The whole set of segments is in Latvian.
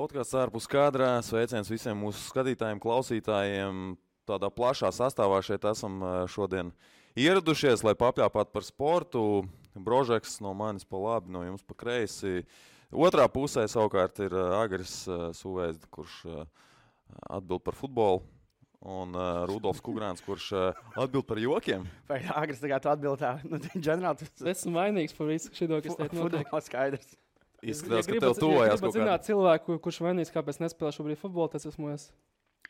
Podkāsts ārpus kadrā. Sveiciens visiem mūsu skatītājiem, klausītājiem. Tādā plašā sastāvā šeit esam šodien ieradušies, lai papļāpātu par sportu. Brožeks no manis pa labi, no jums pa kreisi. Otrā pusē savukārt ir Agris Suvēzd, kurš atbild par futbolu. Un Rudolfs Kugrāns, kurš atbild par jokiem. Vai Agris tagad atbild tā? Nu, ģenerāli, Es esmu vainīgs par visu šito, kas teikt notiek. futbols skaidrs. Izskatās, ka tev tuvojās kaut zināt kādā. cilvēku, kurš vainīgs, kāpēc nespēlē šobrīd futbolu, tas esmu es.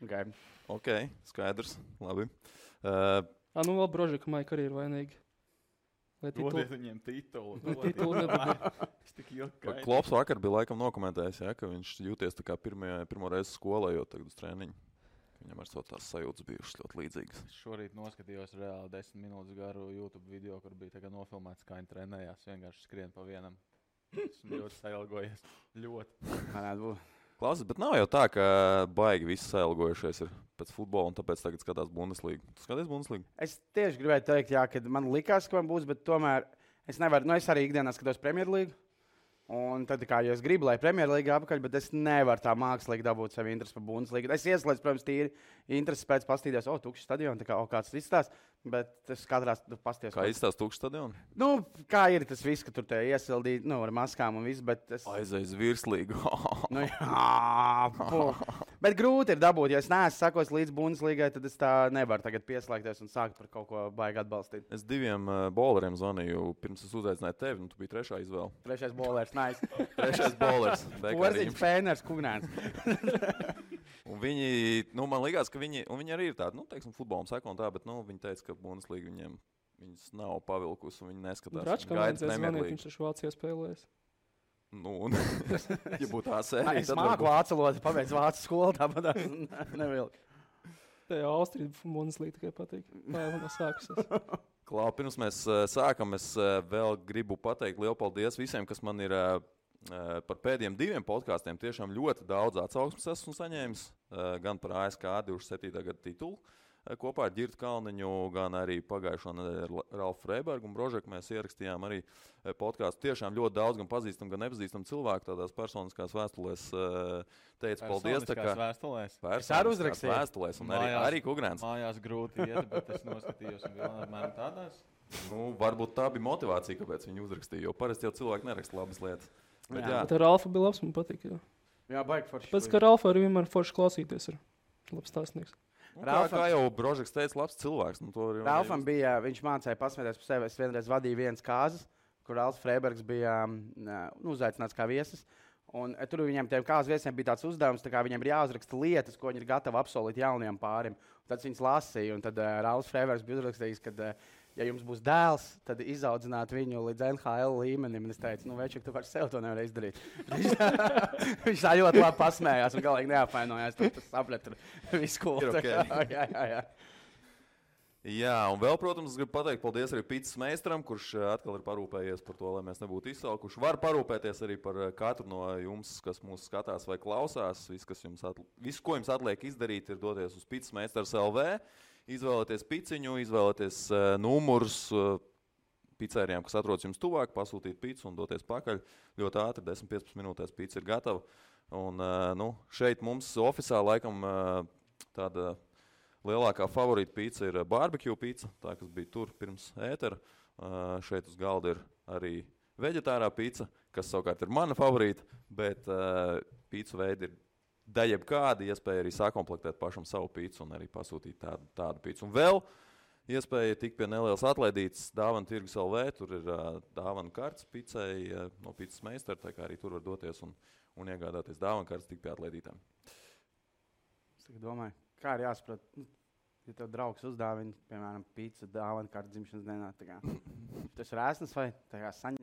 Okay. Ok, skaidrs. Labi. Nu vēl Brožika Maika arī ir vainīgi. Lai Dodiet viņiem titulu. titulu nedabū. Es tik jokaini. Klops vakar bija laikam nokomentējis, ja, ka viņš jūties tā kā pirmo reizi skolā, jo tagad uz treniņu. Viņam ar savu tās sajūtas bijušas ļoti līdzīgas. Es šorīt noskatījos reāli 10 minūtes garu YouTube video, kur bija tagad nofilmēts, kā viņi trenējās. Vienkārši skrien pa vienam. Esmu ļoti sailgojies. Ļoti. Varētu būt. Klausies, bet nav jau tā, ka baigi visi sailgojušies ir pēc futbola un tāpēc tagad skatās Bundeslīgu. Tu skaties Bundeslīgu? Es tieši gribēju teikt, jā, ka man likās, ka man būs, bet tomēr es nevaru. Es arī ikdienā skatos Premjerlīgu. Un tad, kā jau es gribu, lai Premjerlīga apakaļ, bet es nevaru tā mākslīgi dabūt sev interesi par Bundeslīgu. Es ieslēdzu, protams, tīri interesi pēc pastīties, tukšs stadions, tā kā kāds izstāsta, bet es katrā pasties. Kā izstāsta tukšs stadions? Nu, kā ir tas viss, ka tur te iesildīt, ar maskām un viss, bet es... Aizies virslīgu. Nu, jā, bet grūti ir dabūt, ja es neesmu sakos līdz Bundeslīgai, tad es tā nevaru tagad pieslēgties un sākt par kaut ko baigi atbalstīt. Es diviem bowleriem zvanīju, pirms es uzaicināju tevi, tu biji trešā izvēle. Trešais bowlers, nice. Trešais bowlers. Porziņš, Pēners, Kugnāns. Un viņi, man likās, ka viņi arī ir tādi, teiksim, futbolam seko un tā, bet, viņi teica, ka Bundeslīga viņas nav pavilkusi un viņi neskatās. Dračkam vajadzēja zvanīt, viņš taču Vācijā spēlējas. Un, ja būtu tā sērija, Es māku vācu valodu, pabeidzu vācu skolu, tāpat nevilku. Te jau Austrija Bundeslīga tikai patīk. Vai jau nav sākusies? Klau, pirms mēs sākam, es vēl gribu pateikt lielu paldies visiem, kas man ir par pēdējiem 2 podkāstiem. Tiešām ļoti daudz atsauksmes esmu saņēmis, gan par ASK 27. gada titulu kopā ar Ģirtu Kalniņu, gan arī pagājušo nedēļu ar Ralfu Freibergu un Brožeku. Mēs ierakstījām arī podkāstu. Tiešām ļoti daudz gan pazīstam, gan nepazīstam cilvēku tādās personiskās vēstulēs. Teicu paldies. Vēstulēs? Es arī uzrakstīju. Vēstulēs un Mājās- arī Kugrāns. Mājās grūti iet, bet es noskatījos un vēl apmēram tādās. Varbūt tā bija motivācija, kāpēc viņi uzrakstīja, jo parasti jau cilvēki neraksta labas lietas. Bet, jā. Bet ar Ralfu bija labs, man patīk. Jā. Jā, baigi forši. Pēc, ka Ralfu arī vienmēr forši klausīties ir labs stāstnieks. Kā jau Brožeks teica, labs cilvēks. Ralfam bija, viņš mācīja pasmēties par sevi. Es vienreiz vadīju vienas kāzas, kur Ralfs Freibergs bija uzaicināts kā viesis. Un tur viņiem tiem kāzas viesiem bija tāds uzdevums, tā kā viņiem ir jāuzraksta lietas, ko viņi ir gatavi apsolīt jauniem pārim. Un tad viņas lasīja, un tad Ralfs Freibergs bija uzrakstījis, ka, ja jums būs dēls, tad izaudzināt viņu līdz NHL līmenim. Un es teicu, Večuk, tu par sevi to nevar izdarīt. Viņš tā ļoti labi pasmējās un galīgi neapvainojās. Tas sapratu visu skolu. Okay. Jā, un vēl, protams, es gribu pateikt paldies arī Pīcis meistaram, kurš atkal ir parūpējies par to, lai mēs nebūtu izsalkuši. Kurš var parūpēties arī par katru no jums, kas mūs skatās vai klausās. Viss, ko jums atliek izdarīt, ir doties uz Pīcis meistars LV, izvēlēties piciņu, izvēlēties numurus picērijām, kas atrodas jums tuvāk, pasūtīt picu un doties pakaļ. Ļoti ātri, 10-15 minūtēs pica ir gatava. Un šeit mums oficiāli laikam tāda lielākā favorīta pīca ir barbecue pīca, tā, kas bija tur pirms ētera. Šeit uz galda ir arī veģetārā pīca, kas savukārt ir mana favorīta, bet pīcu veidi ir daļai kāda iespēja arī sakomplektēt pašam savu pīcu un arī pasūtīt tādu pīcu. Un vēl iespēja tikt pie nelielas atlaidītas dāvana tirgus LV, tur ir dāvana kartes picai no Pīcis meistara, tā kā arī tur var doties un iegādāties dāvana kartes tik pie atlaidītām. Es domāju, kā ir jāsaprot, ja tev draugs uzdāvina, piemēram, pīci dāvana kartes dzimšanas dienā. Tas ir rēsnas vai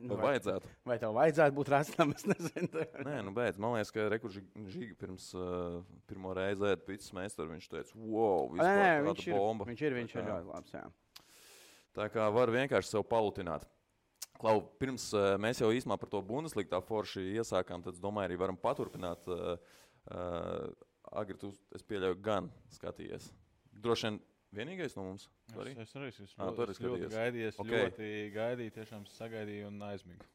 vajadzētu? Vai tev vajadzētu būt rēsnam, es nezinu. Nē, beidz. Man liekas, ka Žīga pirms pirmo reizi ēd Pīcis meistaru, viņš teica, wow, vispār tāda bomba. Viņš ir ļoti labs, jā. Tā kā var vienkārši sev palutināt. Klau, pirms mēs jau īsumā par to Bundeslīgu tā forši iesākām, tad es domāju, arī varam paturpināt. Agri, tu, es pieļauju, gan skatījies. Droši vien vienīgais no mums? Es arī ļoti gaidīju, ļoti gaidīju, tiešām sagaidīju un aizmigu.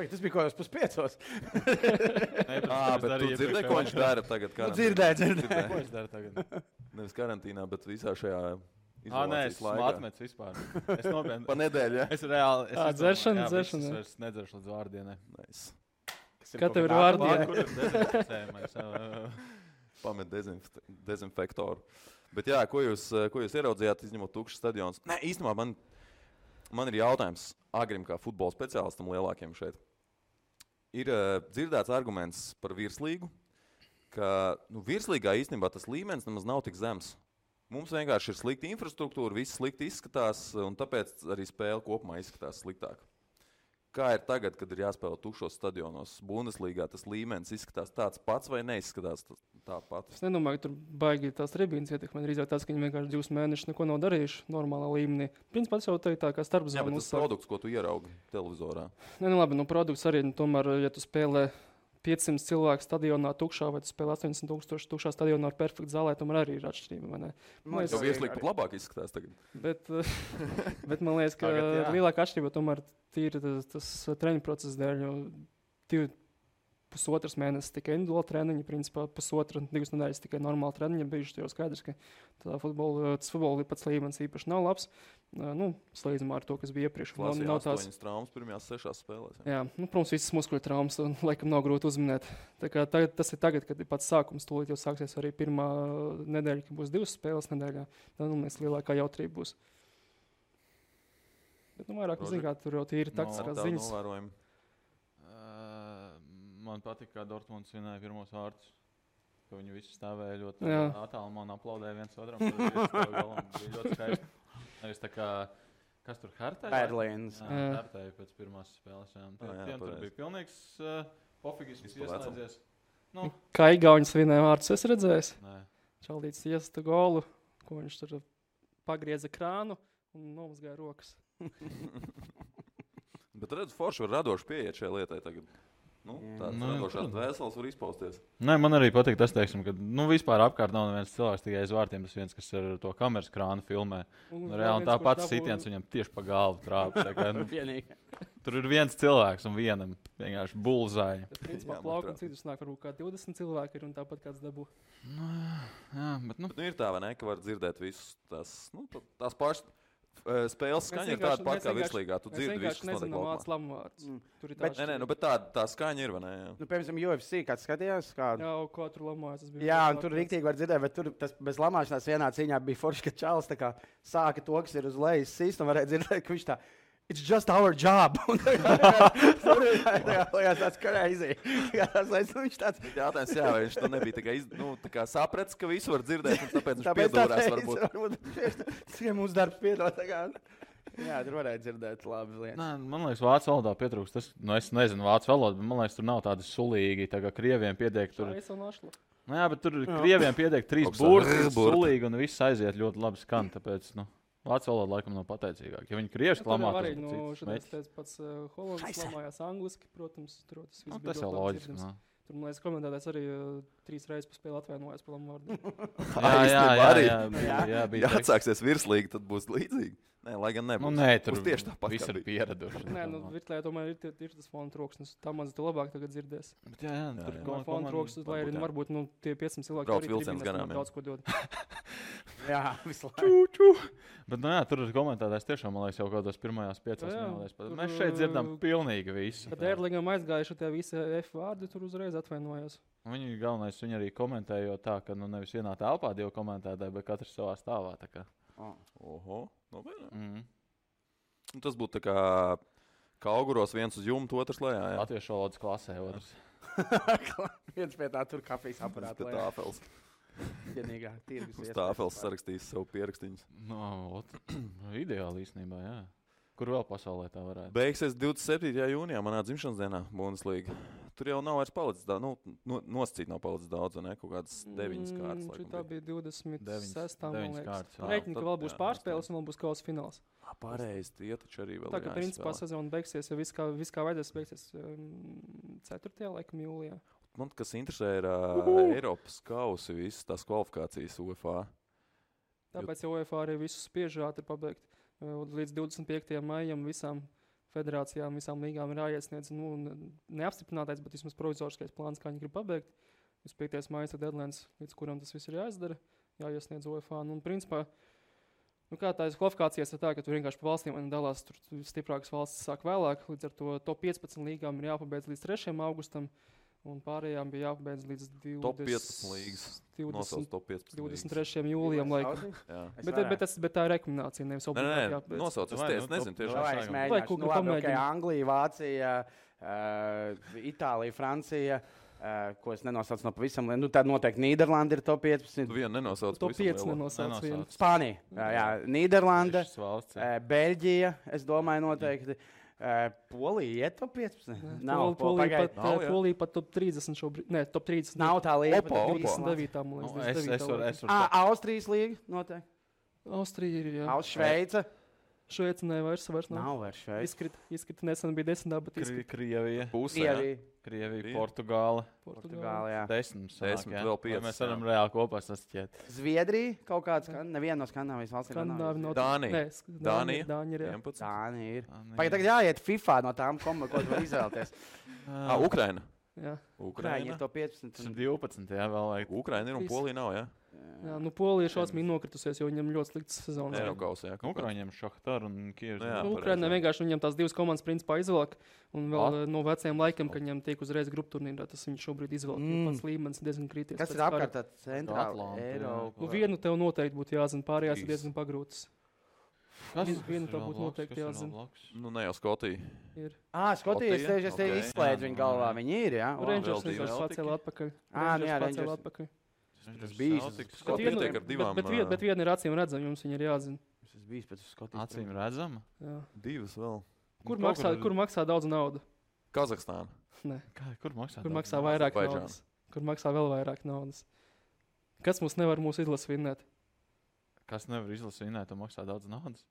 Tas bija kaut kas 5:00. Bet tu dzirdēji, ko viņš dara tagad? Dzirdēju. Ko viņš dara tagad? Nevis karantīnā, bet visā šajā Nē, izolācijas es laikā. atmetu vispār. Es nopietni. Pa nedēļu, ja? Es reāli... Dzeršana. Es vairs nedzeršu līdz vārdienai. Nice. Kā tev ir vārdi? Kur ir dezinficējumais? Pamet dezinfektoru. Bet jā, ko jūs ieraudzījāt, izņemot tukšas stadionus? Nē, īstenībā man ir jautājums Agrim kā futbola speciālistam lielākiem šeit. Ir dzirdēts arguments par virslīgu, ka virslīgā īstenībā tas līmenis nemaz nav tik zems. Mums vienkārši ir slikta infrastruktūra, viss slikti izskatās, un tāpēc arī spēle kopumā izskatās sliktāk. Kā ir tagad, kad ir jāspēlē tukšos stadionos? Bundeslīgā tas līmenis izskatās tāds pats vai neizskatās tāpat? Es nedomāju, ka tur baigi tās tribīnas ietekmē. Drīzāk tas, ka viņi vienkārši 2 mēnešus neko nav darījuši normālā līmenī. Principā tas jau tā kā starpzona. Jā, bet tas produkts, ko tu ieraugi televizorā. Nē, labi, produkts arī, tomēr, ja tu spēlē 500 cilvēku stadionā tukšā, vai tu spēlē 80,000 tukšā stadionā ar perfektu zālē, tomēr arī ir atšķirība, vai ne? Jo virslīgi pat labāk izskatās tagad. Bet man liekas, ka lielākā atšķirība tomēr tīri tas treniņu process dēļ, jo 1,5 mēnesis tikai individuāli treniņi, principā 1,5–2 nedēļas tikai normāli treniņi bijuši, jau skaidrs, ka tas futbola pats līmenis īpaši nav labs. Slīdzumā ar to, kas bija iepriekš. Nav tās 8 traumas pirmajās 6 spēlēs. Jā, protams, visas muskuļu traumas, laikam nav grūti uzminēt. Tā kā tas ir tagad, kad ir pats sākums, tūlīt jau sāksies arī pirmā nedēļa, kad būs 2 spēles nedēļā. Tad mēs lielākā jautrība būs. Bet vairāk, kā tur jau tīri taktiskās ziņas. Man patīk, kā Dortmunds vinēja pirmos vārdus. Ka viņi visi stāvēja ļoti attālumā un aplaudēja viens otram. Bija ļoti skaisti. Nevis tā kā, kas tur Hertēja? Berlīns. Hertēja pēc pirmās spēles. Tiem tur bija pilnīgs pofigisms ieslēdzies. Kā Igauņas vinēja vārdus, es redzējis? Nē. Čaldīts iesta golu, ko viņš tur pagrieza krānu un nomazgāja rokas. Bet redz, forši var radoši pieiet šai lietai tagad. Tāds radošās dvēseles var izpausties. Nē, man arī patīk tas, teiksim, ka vispār apkārt nav neviens cilvēks tikai aiz vārtiem. Tas viens, kas ar to kameras krānu filmē. Reāli tā pats sitiens viņam tieši pa galvu trāpa. Tur ir viens cilvēks un vienam vienkārši bulzāja. Principā plaukam citus nāk, varbūt kā 20 cilvēki ir un tāpat kāds dabū. Jā, bet ir tā, vai ne, ka var dzirdēt visus tās pašas. Spēles skaņa ir tāda pati kā virslīgā. Tu dzirdi visu, kas notiek laukumā. Bet tā skaņa ir, vai ne? Piemēram, UFC, kāds skatījās? Jā, ko tur lamājas. Jā, un tur riktīgi var dzirdēt, bet tur tas bez lamāšanās vienā cīņā bija forši, ka Čāls sāka to, kas ir uz lejas sīst, un varēja dzirdēt, ka viņš tā it's just our job. Tur ir tāds crazy. Viņš tāds jautājums, jā, vai viņš to nebija tā kā sapratis, ka visu var dzirdēt, un tāpēc viņš piedūrās varbūt. Tikai mūsu darbs piedod. Jā, tur varēja dzirdēt labas lietas. Nē, man liekas, vācu valodā pietrūkst. Es nezinu vācu valodu, bet man liekas, tur nav tādi sulīgi, tā kā krieviem piediek tur. Jā, bet tur krieviem piediek 3 burti, sulīgi, un viss aiziet ļoti labi skan, tāpēc, vācu valoda laikam nav pateicīgāk. Ja viņi krieviski lamā, tas ir cits. Šodien pats Holandas lamājās angliski, protams. Tas jau loģiski. Tur, man liekas, komentētājs arī 3 reizes pa spēli atvainojās par lamvārdu. Jā, bija. Ja atsāksies virslīgi, tad būs līdzīgi. Nē, lai gan nebūs. Nē, tur tieši tāpat viss ir pieraduši. Nē, virslīgā tomēr ir tas fona troksnis. Tā maz tu labāk tagad dzirdēs. Jā, tur fona troksnis, lai arī varbūt tie 500 cilvēki brauc vilciens garām. Daudz ko dod. Jā, visu laiku. Bet, tur ir komentētājs tiešām, man liekas, jau kādos pirmajās 5 minūtēs. Mēs šeit dzirdam pilnīgi visu. Kad Erlingam aizgājuši tie visi F vārdi, tur uzreiz atvainojās. Viņi arī komentēja tā, ka nevis vienā telpā 2 komentētāji, bet katrs savā stāvā. Oho, tas būtu tā kā auguros viens uz jumta, otrs lejā. Latviešu valodas klasē otrs. Viens pie tā tur kafijas aparāta lejā. Tāfels. Vienīgā tirgus. Uz tāfels sarakstīs savu pierakstīņus. Ideāli īstenībā, jā. Kur vēl pasaulē tā varētu? Beigsies 27. jūnijā manā dzimšanas dienā Bundeslīga. Tur jau nav vairs palicis daudz, nosacīt nav palicis daudz, ne? Kaut kādas 9 kārtas. Tā bija 26. man liekas. Rēķini, ka vēl būs pārspēles un vēl būs kausa fināls. Pareizi, tie taču arī vēl tā, ka principā sezona beigsies, ja viss kā vajadzēs beigsies 4. laikam jūlijā. Man kas interesē ir Eiropas kausi, visas tās kvalifikācijas UEFA. Tāpēc jau UEFA arī visus spiež ātri pabeigt. Līdz 25. maijam visām federācijām, visām līgām ir jāiesniedz neapstiprinātais, bet vismaz provizoriskais plāns, kā viņi grib pabeigt. 5. maija deadline, līdz kuram tas viss ir jāizdara, jāiesniedz UEFA. Un, principā, kā tā kvalifikācijas ir tā, ka tur vienkārši pa valstīm dalās, tur stiprākas valstis sāk vēlāk, līdz ar to top 15 līgām ir jāpabeidz līdz 3. augustam, un pārējām bija jāpabeidz līdz top 15 līgas. 23. jūlijam. Bet tā ir rekomendācija, nevis obligāti jāpabeidz. Nosauc, es nezinu tieši. Es mēģināšu. Anglija, Vācija, Itālija, Francija. Ko es nenosaucu no pavisam liela. Tad noteikti Nīderlanda ir top 15. Tu vienu nenosauc. Top 5 nenosauc. Spānija. Jā, Nīderlanda, Beļģija, es domāju noteikti. Polija ir top 15. Nav, Polija pat top 30 šobrīd. Nē, top 30. Nav tā līga. Opa. 29. Austrijas līga noteikti. Austrija ir, jā. Šveica. Šveica vairs nav vairs Šveica. Izkrita nesen bija 10. bet Krievija. Krievija, Portugāla, jā. 10 vēl 5. Mēs varam reāli kopā sastiet. Zviedrija kaut kāds, neviena no Skandināvijas valstīm. Dānija. Dānija ir. Tagad jāiet FIFA no tām, ko tu var izvēlēties. Ukraina. Jā. Ukraina ir to 15. 12. Jā, vēl vajag. Ukraina ir un Polija nav, jā. Jā, Polija ir šausmīgi nokritusies, jo viņam ļoti slikts sezonas. Ukraiņiem Šahtar un Kievs. Ukrainā vienkārši viņam tās divas komandas principā izvelk. Un vēl no veciem laikiem, kad viņam tiek uzreiz grupu turnīrā, tas viņš šobrīd izvelk. Pats līmenis diezgan krities. Kas ir apkārt tā centrāla Eiropa? Vienu tev noteikti būtu jāzina, pārējās ir diezgan pagrūtas. Vienu tev būtu noteikti jāzina. Ne jau Skotija. Skotija, es te izslēdzu viņu galvā. Viņi ir, jā? Rangers pacēla atpakaļ. Tas bija bet viena ir acīm redzama, jums viņa ir jāzina. Tas bija pēc Skotijas. Acīm redzama? Jā. Divas vēl. Kur maksā daudz naudas? Kazahstāna. Nē. Kur maksā vairāk naudas? Kur maksā vēl vairāk naudas? Kas mums nevar mūsu izlases vinnēt? Kas nevar izlases vinnēt un maksā daudz naudas?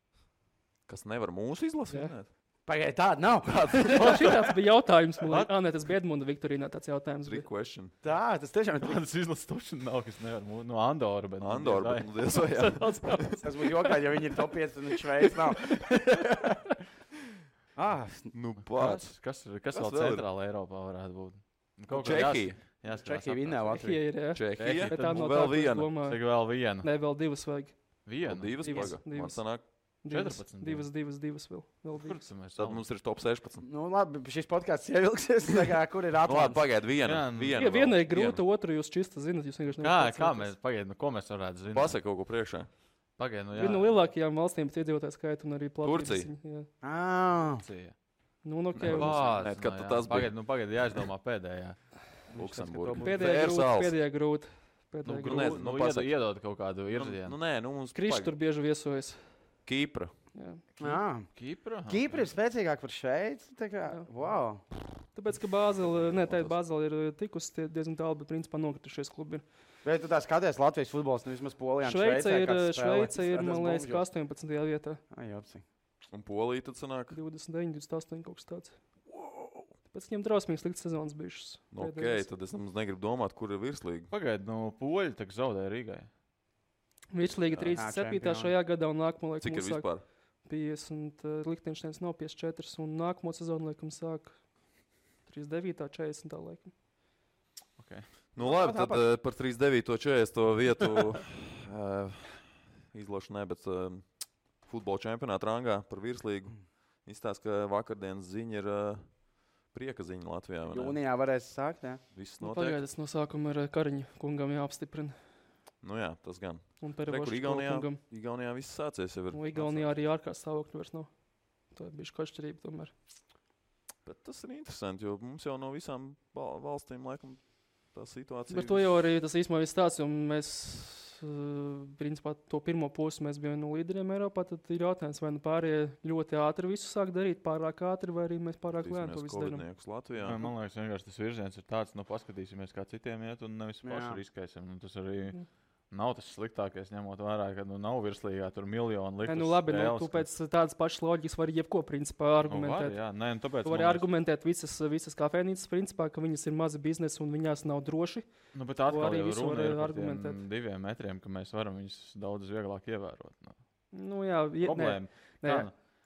Kas nevar mūsu izlases vinnēt? Pagaidā, tāda nav. Šitāds bija jautājums. Nē, tas bija Edmunda Viktorīnā tāds jautājums. Tas tiešām ir. Tādas izlases tošana nav, kas nevar. No Andora, bet. Andora, bet tas būtu jokāļi, ja viņi ir top 5 un Šveic nav. Pats. Kas vēl centrāla Eiropā varētu būt? Čehija. Čehija vinnē Latviju. Čehija. Bet tā nav vēl viena. Vēl viena. Nē, vēl divas vajag. Divas paga. Man sanāk. 14. Divas vēl. Tad mums ir top 16. Labi, šis podcasts ievilksies. Kur ir Atlants? Pagaid, viena. Viena ir grūta, otru jūs čista zinat. Kā mēs, ko mēs varētu zināt? Pasaka kaut ko priekšā. Pagaid, viena no lielākajām valstīm pēc iedzīvotāju skaita un arī Turcija. Turcija. Pagaid, jāizdomā pēdējā. Luksemburga. Pēdējā grūta. Iedod kaut kādu virzienu. Krišs tur bieži viesojas. Kīpra. Kīpra ir spēcīgāka par Šveici. Wow. Tāpēc, ka Bāzela ir tikusi diezgan tālu, bet principā nokritušies klubi. Bet tu tā skaties Latvijas futbols, vismaz Polijā. Šveice ir, man liekas, 18. vietā. Un Polija tad sanāk? 29, 28 kaut kas tāds. Tāpēc viņam drausmīgi slikts sezonas bijušas. Tad es negribu domāt, kur ir virslīga. Pagaid, Poļi tak zaudēja Rīgai. Virslīga 37. šajā gadā un nākamo laikam cik ir vispār? 50, Lichtensteins nav 54 un nākamo sezonu laikam sāk 39. 40. laikam. Okay. Labi, tad par 39. 40. vietu izlošanai, bet futbola čempionāta rangā par virslīgu izstāst, ka vakardienas ziņa ir prieka ziņa Latvijā. Jūnijā varēs sākt, jā? Viss notiek. Pagaidas no sākuma ir Kariņa kungam jāapstiprina. Jā, tas gan. Un Perevošs Igaunijā viss sācies jau ir. Igaunijā arī ārkārtas stāvokļi vairs nav. Tā ir bijuši atšķirība tomēr. Bet tas ir interesanti, jo mums jau no visām valstīm laikam tā situācija. Bet to jau arī tas īstenībā viss tāds, un mēs, principā, to pirmo pusi mēs bijām no līderiem Eiropā, tad ir jautājums, vai pārējie ļoti ātri visu sāk darīt, pārāk ātri, vai arī mēs pārāk lēni to visu darām. Man liekas, vienkārši tas virziens ir tāds, paskatīsimies, kā citiem iet, un nevis paši riskēsim. Tas arī nav tas sliktākais, ņemot vērā, ka nav virslīgā tur miljonu liktas. Labi, tu pēc tādas pašas loģikas vari jebko, principā, argumentēt. Tu vari argumentēt visas kafejnīcas, principā, ka viņas ir mazi biznesi un viņās nav droši. Bet atkal jau runa ir par tiem 2 metriem, ka mēs varam viņus daudz vieglāk ievērot. Problēma.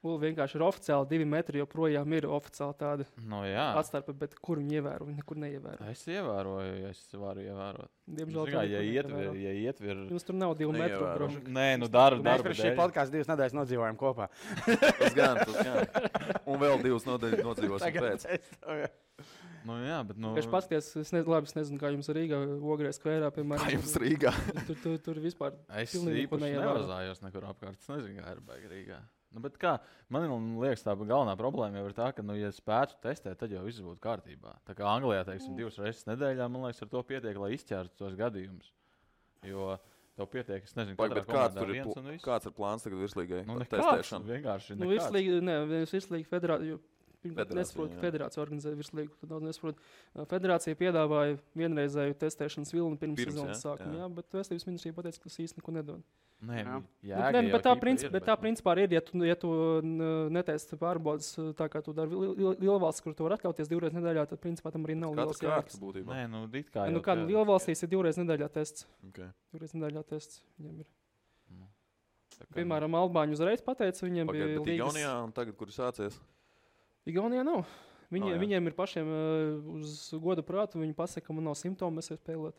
Vienkārši ir oficiāli 2 metri, joprojām ir oficiāli tāda atstarpe, bet kur viņi ievēro, viņi nekur neievēro. Es ievēroju, ja es varu ievērot. Diemžēl ja ietver... Jums tur nav 2 metru. Nē, darbu mēs par šī podkāstu 2 nedēļas nodzīvojam kopā. Tas gan. Un vēl 2 nedēļas nodzīvosim pēc. Bet... Es paskaties, es nezinu, kā jums Rīgā Ogrē skvērā, piemēram. Kā jums Rīgā? Tur vispār es īpaši nevazājos nekur apkārt. Es nezinu, kā ir baigi Rīgā. Bet kā, man liekas, tā galvenā problēma jau ir tā, ka, ja spētu testēt, tad jau viss būtu kārtībā. Tā kā Anglijā, teiksim, 2 reizes nedēļā, man liekas, ar to pietiek, lai izķērtu tos gadījumus. Jo tev pietiek, es nezinu, kāds ir plāns tagad virslīgai testēšanu? Vienkārši nekāds. Virslīga federācija. Nesaprotu, ka federācija organizē virslīgu. Tad daudz nesaprotu. Federācija piedāvāja vienreizēju testēšanas vilni pirms sezonas sākuma, bet Veselības ministrija pateica, ka tas īsti neko nedod. Bet tā principā ir, ja tu netesti pārbaudas tā, kā tu dari lielvalsts, kur tu var atļauties 2 reizes nedēļā, tad principā tam arī nav liels jēgas. Lielvalstīs ir 2 reizes nedēļā tests. 2 reizes nedēļā tests viņiem ir. Piemēram, Albāņi uzreiz pateica, viņiem bija līgas. Igaunijā un tagad, kur ir sācies? Igaunijā nav. Viņiem ir pašiem uz goda prātu, viņi pasaka, ka man nav simptomu, es varu spēlēt.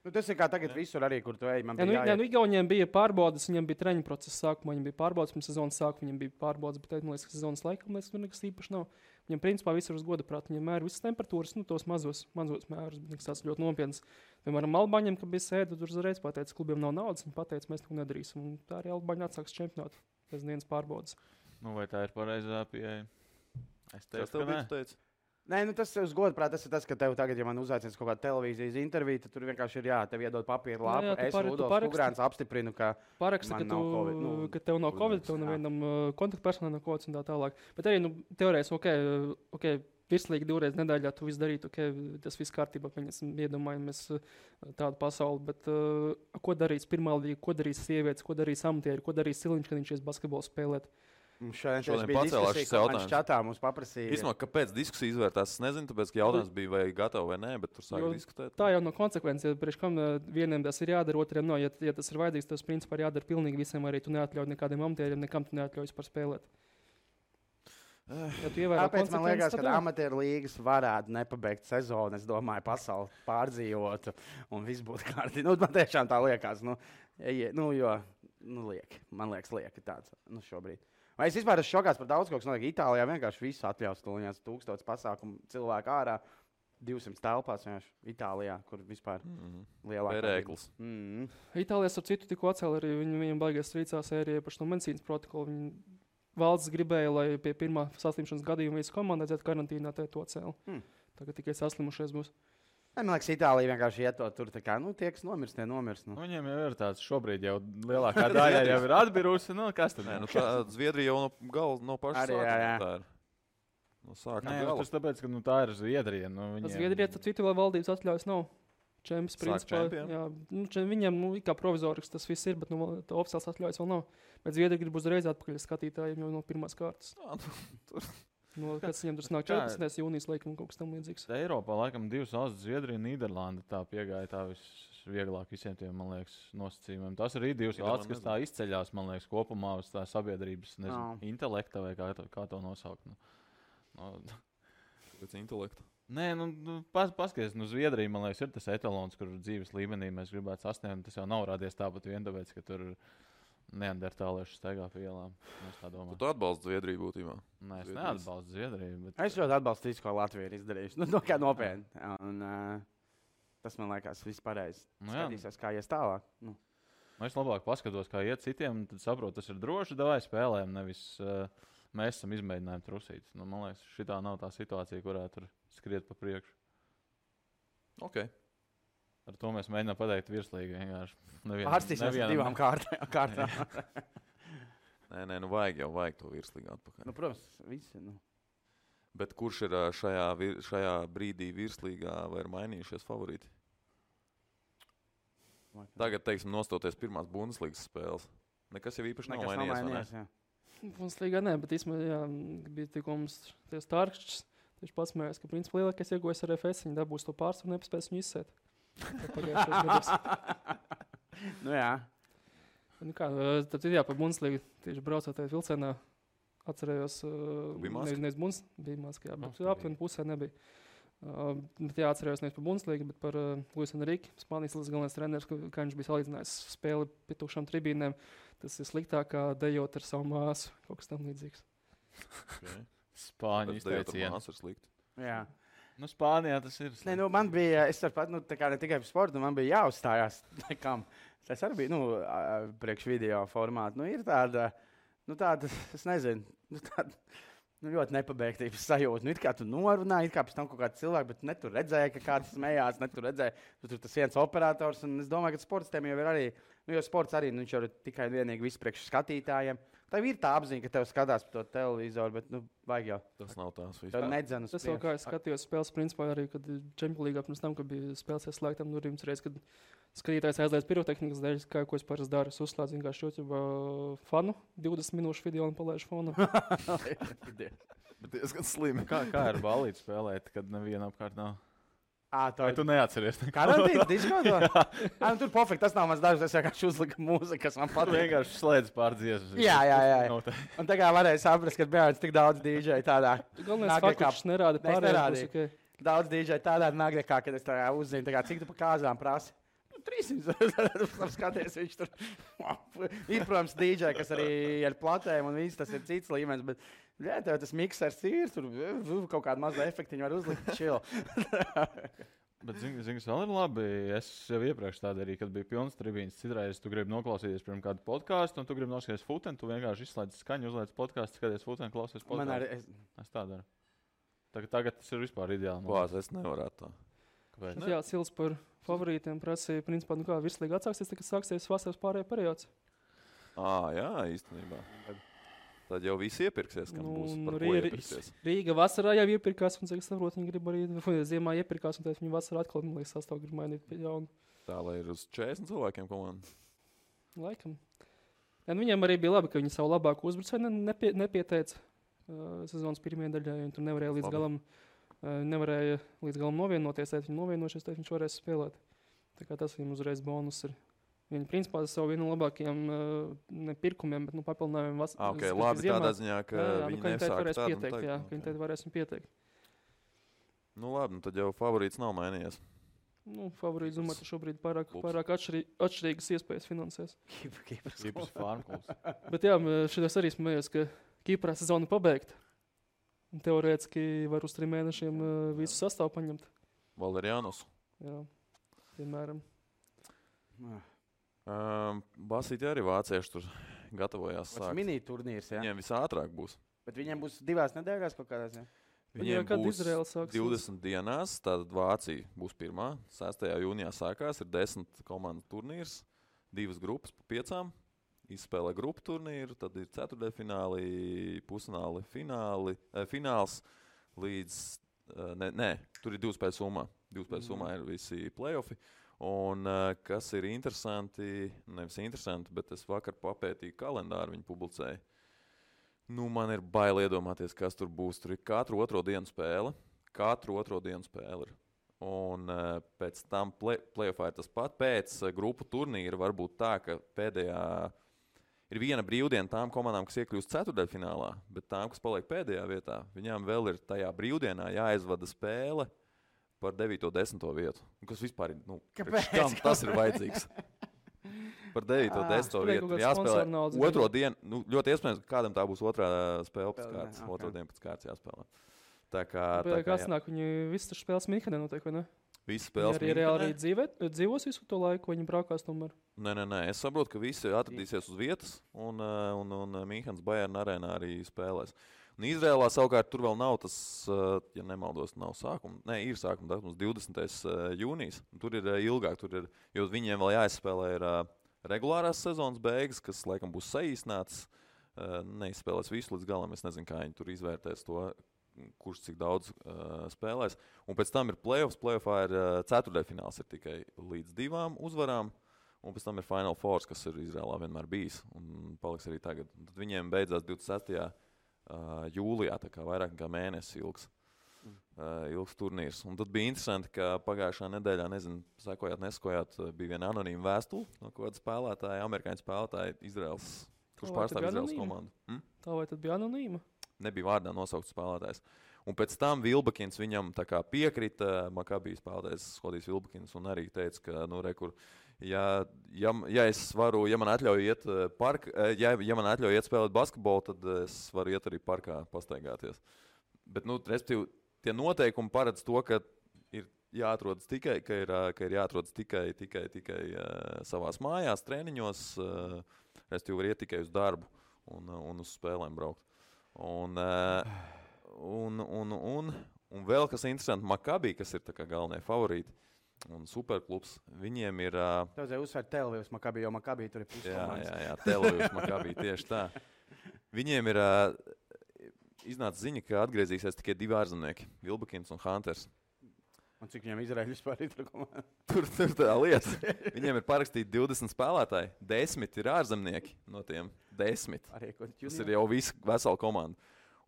Tas ir kā tagad visur arī, kur tu ej. Igauniem bija pārbaudas, viņiem bija treņu procesa sākumā, viņiem bija pārbaudas, pirms sezonas sākuma viņiem bija pārbaudas, bet man liekas, ka sezonas laikam tur nekas īpaši nav. Viņiem principā visur uz goda prātu, viņiem mēra visas temperatūras, tos mazos mērus, bet nekas tāds ļoti nopietns. Piemēram, Albāņiem, kad bija sēde, tur uzreiz pateica, klubiem nav naudas, viņi pateica, mēs neko nedarīsim. Un tā arī Albāņi atsāks čempionātu pēc dienas pārbaudas. Vai tā ir pareizā pieeja? Es tev teicu. Nē, tas uz godu prāt, tas ir tas, ka tev tagad, ja man uzaicins kaut kāda televīzijas intervija, tad tur vienkārši ir tev iedod papīru lapu. Es Rudolfs Ugrāns apstiprinu, ka paraksta, ka tev nav Covid, tev nevienam kontaktpersonai nav Covid un tā tālāk. Bet arī, teorētiski, virslīgi 2 reizes nedēļā tu visu darītu, tas viss kārtībā, pieņemsim, iedomājamies tādu pasauli, bet ko darīs pirmā līga, ko darīs sievietes, ko darīs amatieri, ko darīs Siliņš, kad viņš ies basketbolu spēlēt? Šodien pacēlās šis jautājums. Čatā mums paprasīja. Īsumā, kāpēc diskusija izvērtās, es nezinu, tāpēc, ka jautājums bija vai gatavi vai nē, bet tur sāka diskutēt. Tā jau no konsekvences, priekš kam vieniem tas ir jādara, otriem nav. Ja tas ir vajadzīgs, tas principā ir jādara pilnīgi visiem, arī tu neatļauj nekādiem amatieriem, nekam tu neatļauj vispār spēlēt. Tāpēc man liekas, ka amatieru līgas varētu nepabeigt sezonu, es domāju, pasauli pārdzīvotu un viss būtu kārtīgi. Man tiešām tā liekas, man liekas, lieki tāds, šobrīd. Vai es vispār esmu šokāts par daudz, kas notiek Itālijā. Vienkārši visu atļaus, tuliņās 1000 pasākumu cilvēku ārā, 200 telpās vienkārši Itālijā, kur vispār lielākā pērēklis. Itālijā, ar citu, tikko atcēla arī viņiem baigās strīcās ērija par šo medicīnas protokolu. Valsts gribēja, lai pie pirmā saslimšanas gadījuma visu komandu aiziet karantīnā, tad to cēla. Tagad tikai saslimušies būs. Man liekas, Itālija vienkārši iet to tur, tā kā, tie, kas nomirst, tie nomirst. Viņiem jau ir tāds, šobrīd jau lielākā daļa jau ir atbirusi, kas tad? Zviedrija jau no paša sākuma. Tas tāpēc, ka tā ir Zviedrija. Zviedrija, tad citu vēl valdības atļaujas nav. Čemps, principā, viņiem kā provizorisks tas viss ir, bet oficiāls atļaujas vēl nav. Bet Zviedrija grib uzreiz atpakaļ skatītājiem jau no pirmās kārtas. Kas viņam tur nāk 14. jūnijas laikam un kaut kas tam līdzīgs. Eiropā laikam 2 valstis, Zviedrija un Nīderlanda, tā piegāja tā visvieglāk visiem tiem, man liekas, nosacījumiem. Tas arī 2 valstis, kas tā izceļās, man liekas, kopumā uz tā sabiedrības, intelekta vai kā to nosaukt. Pēc intelekta? Nē, paskaties, Zviedrija, man liekas, ir tas etalons, kur dzīves līmenī mēs gribētu sasniegt. Tas jau nav radies tāpat vien tāpēc, ka tur neandertālieši staigā pa ielām. Tu atbalsti Zviedriju būtībā? Nē, es neatbalstu Zviedriju. Bet... Es ļoti atbalstu visu, ko Latvija ir izdarījusi. Kā nopietni. Tas man liekas viss pareizi. Skatīsies, kā ies tālāk. Es labāk paskatos, kā iet citiem, tad saprotu, tas ir droši, davai spēlēm, nevis mēs esam izmēģinājumi trusīt. Man liekas, šitā nav tā situācija, kurā tur skriet pa priekšu. Ok. Ar to mēs mēģinām pateikt virslīgi vienkārši. Pārstīsimies 2 kārtām. Nē, vajag to virslīgi atpakaļ. Protams, visi. Bet kurš ir šajā brīdī virslīgā vai ir mainījušies favorīti? Tagad, teiksim, nostoties pirmās Bundeslīgas spēles. Nekas jau īpaši nav mainījies. Bundeslīgā nē, bet īstenībā bija tikko mums tie Starkšķis. Tieši pats mērķis, ka principā lielākais iegūjas ar FS, viņi dabūs to pārsvaru un nepaspēs viņu izsēt. Jā. Tad par Bundeslīgu tieši braucot tajā vilcienā, atcerējos, nevis Bundes, bija maskā, bet aptuveni pusē nebija. Bet atcerējos nevis par Bundeslīgu, bet par Luisu Enriku, Spānijas līgas galvenais treneris, kā viņš bija salīdzinājis spēli pie tukšām tribīnēm. Tas ir sliktāk kā dejot ar savu māsu, kaut kas tam līdzīgs. Okay. Spāņu izteiciens. Jā. Nu, Spānijā tas ir. Nē, nu, man bija, es tāpat, ne tikai par sportu, man bija jāuzstājās. Tas arī bija, priekš video formātu. Nu, ir tāda, es nezinu, ļoti nepabeigtības sajūta. Nu, it kā tu norunāji, it kā pēc tam kaut kāds cilvēks, bet ne tu redzēji, ka kāds smējās, ne tu redzēji, tu tur tas viens operators. Un es domāju, ka sportistiem jau ir arī, jo sports arī, viņš jau ir tikai vienīgi viss priekš skatītājiem. Tev ir tā apziņa, ka tev skatās par to televizoru, bet, vajag jau. Tas nav tās viss. Tev nedzen uz priekšu. Tas jau kā es skatījos spēles, principā arī, kad Champions League pirms tam, kad bija spēles ieslēgtām durvīm, reiz, kad skatītājs aizliedz pirotehnikas dēļ, ko es parasti daru, es uzslēdzu vienkārši YouTube fanu, 20 minūšu video un palaižu fonu. Bet diezgan slimi. Kā ar ballīti spēlēt, kad neviena apkārt nav? Vai tu neatceries? Karantīnas diskodā? Tur pofīgi, tas nav mans darbs, es vienkārši uzliku mūziku, kas man patīk. Tu vienkārši slēdz pārdziesmas. Jā. Un tagad varēja saprast, ka bija tik daudz DJ tādā. Galvenais fakts, ka nerāda pārējās. Okay. Daudz DJ tādā nagrekā, kad es uzzinu, cik tu pa kāzām prasi. 300 skaties, viņš tur ir, protams, DJ, kas arī ir platējumi un viss, tas ir cits līmenis, bet jā, tev tas miksers ir, tur kaut kādu mazu efektiņu var uzlikt chill. Bet, zini, kas vēl ir labi, es jau iepriekš tādu arī, kad bija pilns tribīns, citreiz tu gribi noklausīties pirms kādu podcastu, un tu gribi noskaties futeni, tu vienkārši izslēdz skaņu, uzliec podcastu, skaties futeni, klausies podcastu. Es tā daru. Tagad tas ir vispār ideāli. Klās, es nevarētu tā. Kāpēc? Jā, Sils par favorītiem prasīja, principā, kā virslīga atsāksies, tad sāksies vasaras pārējā periods. Jā, īstenībā. Tad jau viss iepirksies, kam būs par ko iepirksies. Rīga vasarā jau iepirkās, un cik saprot, viņi grib arī ziemā iepirkās, un tad viņi vasarā atkal, man liekas, sastāv grib mainīt pie jaunu. Tā, lai ir uz 40 cilvēkiem komanda. Laikam. Ja, viņiem arī bija labi, ka viņi savu labāku uzbrucēju nepieteica sezonas pirmajā daļā, un tur nevarēja līdz galam novienoties, tad viņi novienošies, tad viņš varēs spēlēt. Tā kā tas viņam uzreiz bonus ir. Viņi principā savu vienu no labākajiem nepirkumiem, bet papildinājumiem labi ziemā. Tādā ziņā, ka viņi nesāk tādu pieteikt, jā, ka viņi tad varēs viņu pieteikt. Nu labi, tad jau favorīts nav mainījies. Favorīts, domāju, ka šobrīd pārāk atšķirīgas iespējas finansēs. Kipras farmklubs. Bet jā, šitas arī smējos, ka Kiprā sezona pabeigta. Teorētiski var uz 3 mēnešiem visu sastāvu paņemt. Valeriānus. Jā, piemēram. Basīti arī vācieši tur gatavojās sākt. Tas mini turnīrs, jā? Viņiem visātrāk būs. Bet viņiem būs 2 nedēļās kaut kādās, jā? Viņiem būs 20 dienās, tātad Vācija būs pirmā. 6. jūnijā sākās, ir 10 komandu turnīrs, 2 grupas pa 5. Izspēlē grupu turnīru, tad ir ceturtdaļfināli, pusfināli, fināls līdz, tur ir 2 spēļu summā. 2 spēļu summā ir visi play-offi. Un kas ir interesanti, nevis interesanti, bet es vakar papētīju kalendāru, viņi publicēja. Man ir bail iedomāties, kas tur būs. Tur ir katru otro dienu spēle. Ir. Un pēc tam play-offā ir tas pat. Pēc grupu turnīra var būt tā, ka pēdējā ir viena brīvdiena tām komandām, kas iekļūst ceturtdaļfinālā, bet tām, kas paliek pēdējā vietā, viņām vēl ir tajā brīvdienā jāizvada spēle par 9. un 10. vietu. Kas vispār ir, kam tas ir vajadzīgs? Par 9. un 10. vietu jāspēlē otro dienu. Ļoti iespējams, ka kādam tā būs otrā spēle pēc kārtas. Otro dienu pēc kārtas jāspēlē. Tā kā kāds nāk, viņi visas spēles Minhenē notiek, vai ne? Visi spēles Minhenē. Arī dzīvos visu to laiku, viņi braukās tomēr? Nē. Es saprotu, ka visi atradīsies uz vietas, un Minhenes Bayern arēnā arī spēlēs. Un Izrēlā savukārt tur vēl nav tas, ja nemaldos, nav sākuma. Nē, ir sākuma datums 20. jūnijas. Tur ir ilgāk, jo viņiem vēl jāizspēlē ir regulārās sezonas beigas, kas laikam būs saīsnāts. Neizspēlēs visu līdz galam, es nezinu, kā viņi tur izvērtēs to, kurš cik daudz spēlēs. Un pēc tam ir play-offs. Play-offā ir ceturtdaļfināls ir tikai līdz 2 uzvarām. Un pēc tam ir Final Four, kas ir Izrēlā vienmēr bijis. Un paliks arī tagad. Un tad viņiem beidzās 26. Jūlijā, tā kā vairāk nekā mēnesi ilgs turnīrs. Un tad bija interesanti, ka pagājušā nedēļā, nezinu, sekojāt, bija viena anonīma vēstule no kāda spēlētāja, amerikāņu spēlētāja Izraels kurš pārstāv Izraels komandu. Tā vai tad bija anonīma? Nebija vārdā nosaukts spēlētājs. Un pēc tam Vilbekins viņam tā kā piekrita, Makabī spēlētājs Skodijs Vilbekins, un arī teica, ka, ja man atļauj iet ja man atļauj iet spēlēt basketbolu, tad es varu iet arī parkā pastaigāties. Bet, respektīvi, tie noteikumi paredz to, ka ir jāatrodas tikai savās mājās, treniņos, respektīvi var iet tikai uz darbu un uz spēlēm braukt. Un vēl kas interesanti, Makabī, kas ir tā kā galvenie favorīti un superklubs, viņiem ir... Tev vajag uzsvērt Tel-Avivs Makabī, jo Makabī tur ir puskomājas. Jā, Tel-Avivs Makabī, tieši tā. Viņiem ir iznāca ziņa, ka atgriezīsies tikai 2 ārzemnieki, Vilbekins un Hunters. Un cik viņam Izraēļ vispār ir komanda? Tur tā lieta. Viņiem ir parakstīti 20 spēlētāji, 10 ir ārzemnieki no tiem 10. Tas ir jau visa vesela komanda.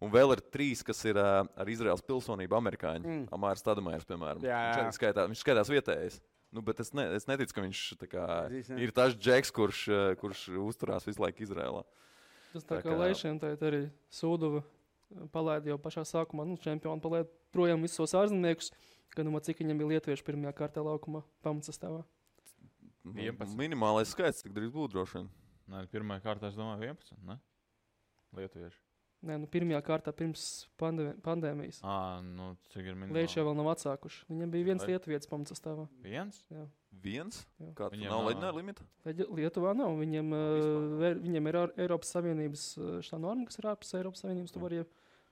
Un vēl ir 3, kas ir ar Izraels pilsonību amerikāņi. Amārs Tadamairs, piemēram. Viņš skaitās vietējais. Bet es neticu, ka viņš ir tas džeks, kurš uzturās visu laiku Izrēlā. Tas tā kā Leišiem arī Sūduva palaida jau pašā sākumā. Čempioni palaida projām visos ārzemniekus, gan cik viņam bija lietuvieši pirmajā kārtā laukumā pamatsastāvā. 11. Minimālais skaits, cik drīz būtu droši vien. Nē, pirmajā kārtā es domāju 11, ne? Lietuvieši. Nē, pirmajā kārtā pirms pandēmijas. Cik ir minimāli? Lieši jau vēl nav atsākuši. Viņam bija viens lietuvietis pamatsastāvā. Viens? Jā. Viens? Jā. Kā tu nav leģionāra limita? Lietuvā nav. Viņiem ir Eiropas Savienības štā norma, kas ir ārpus Eiropas Savienības. Tu vari,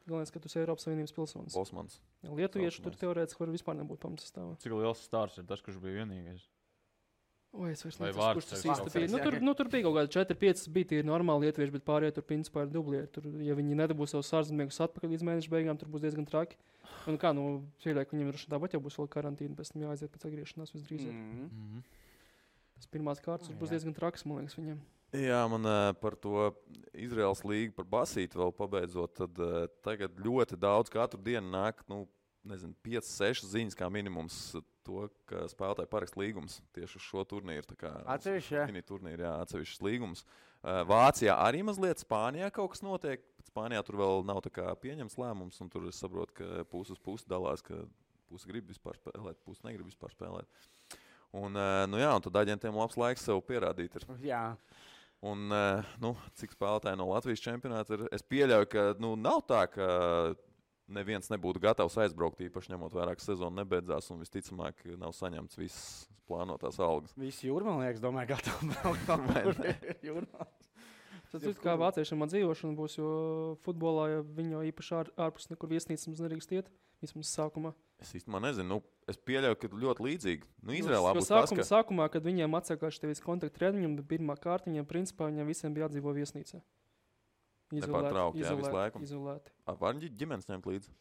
galvenais, ka tu esi Eiropas Savienības pilsonis. Osmans. Lietuvieši tur teorētiski var vispār nebūt pamatsastāvā. Cik liels stārs ir tas, kurš bija vienīgais? Es vairs nezinu, kurš tas īsti bija. Tur bija kaut kādi 4-5 bija tie normāli lietuvieši, bet pārējie tur principā ir dublieri. Tur, ja viņi nedabūs savus ārzemniekus atpakaļ līdz mēneša beigām, tur būs diezgan traki. Pieļauju, ka viņiem tāpat jau būs vēl karantīna, pēc tam jāaiziet pēc atgriešanās visdrīzāk. Tas pirmās kārtas būs diezgan traks, man liekas, viņiem. Jā, man par to Izraels līgu, par basīti vēl pabeidzot, tad tagad ļoti daudz katru dienu nāk, 5-6 ziņas kā minimums to, ka spēlētāji parakst līgums tieši uz šo turnīru. Atsevišķs līgums. Vācijā arī mazliet, Spānijā kaut kas notiek. Spānijā tur vēl nav pieņemts lēmums, un tur es saprotu, ka pusi uz pusi dalās, ka pusi grib vispār spēlēt, pusi negrib vispār spēlēt. Un tad aģentiem labs laiks sev pierādīt ir. Jā. Un, cik spēlētāji no Latvijas čempionāta ir, es pieļauju, ka nav tā, ka neviens nebūtu gatavs aizbraukt, īpaši ņemot vērā, ka sezona nebeidzās un visticamāk nav saņemts visas plānotās algas. Visi jūrmalnieks, domāju, gatavi braukt. Tas ir kā vāciešiem dzīvošana būs, jo futbolā ja viņi jau īpaši ārpus nekur viesnīcas mums nedrīkst iet, vismaz sākumā. Es īstenībā nezinu, es pieļauju, ka ļoti līdzīgi. Izrēlā būs tas, ka... Sākumā, kad viņiem atsākās tevis kontaktu treniņam, bet pirmā kārta viņiem principā viņiem visiem bija jādzīvo viesnīcā. Izolēti. Var ģimenes ņemt līdzi?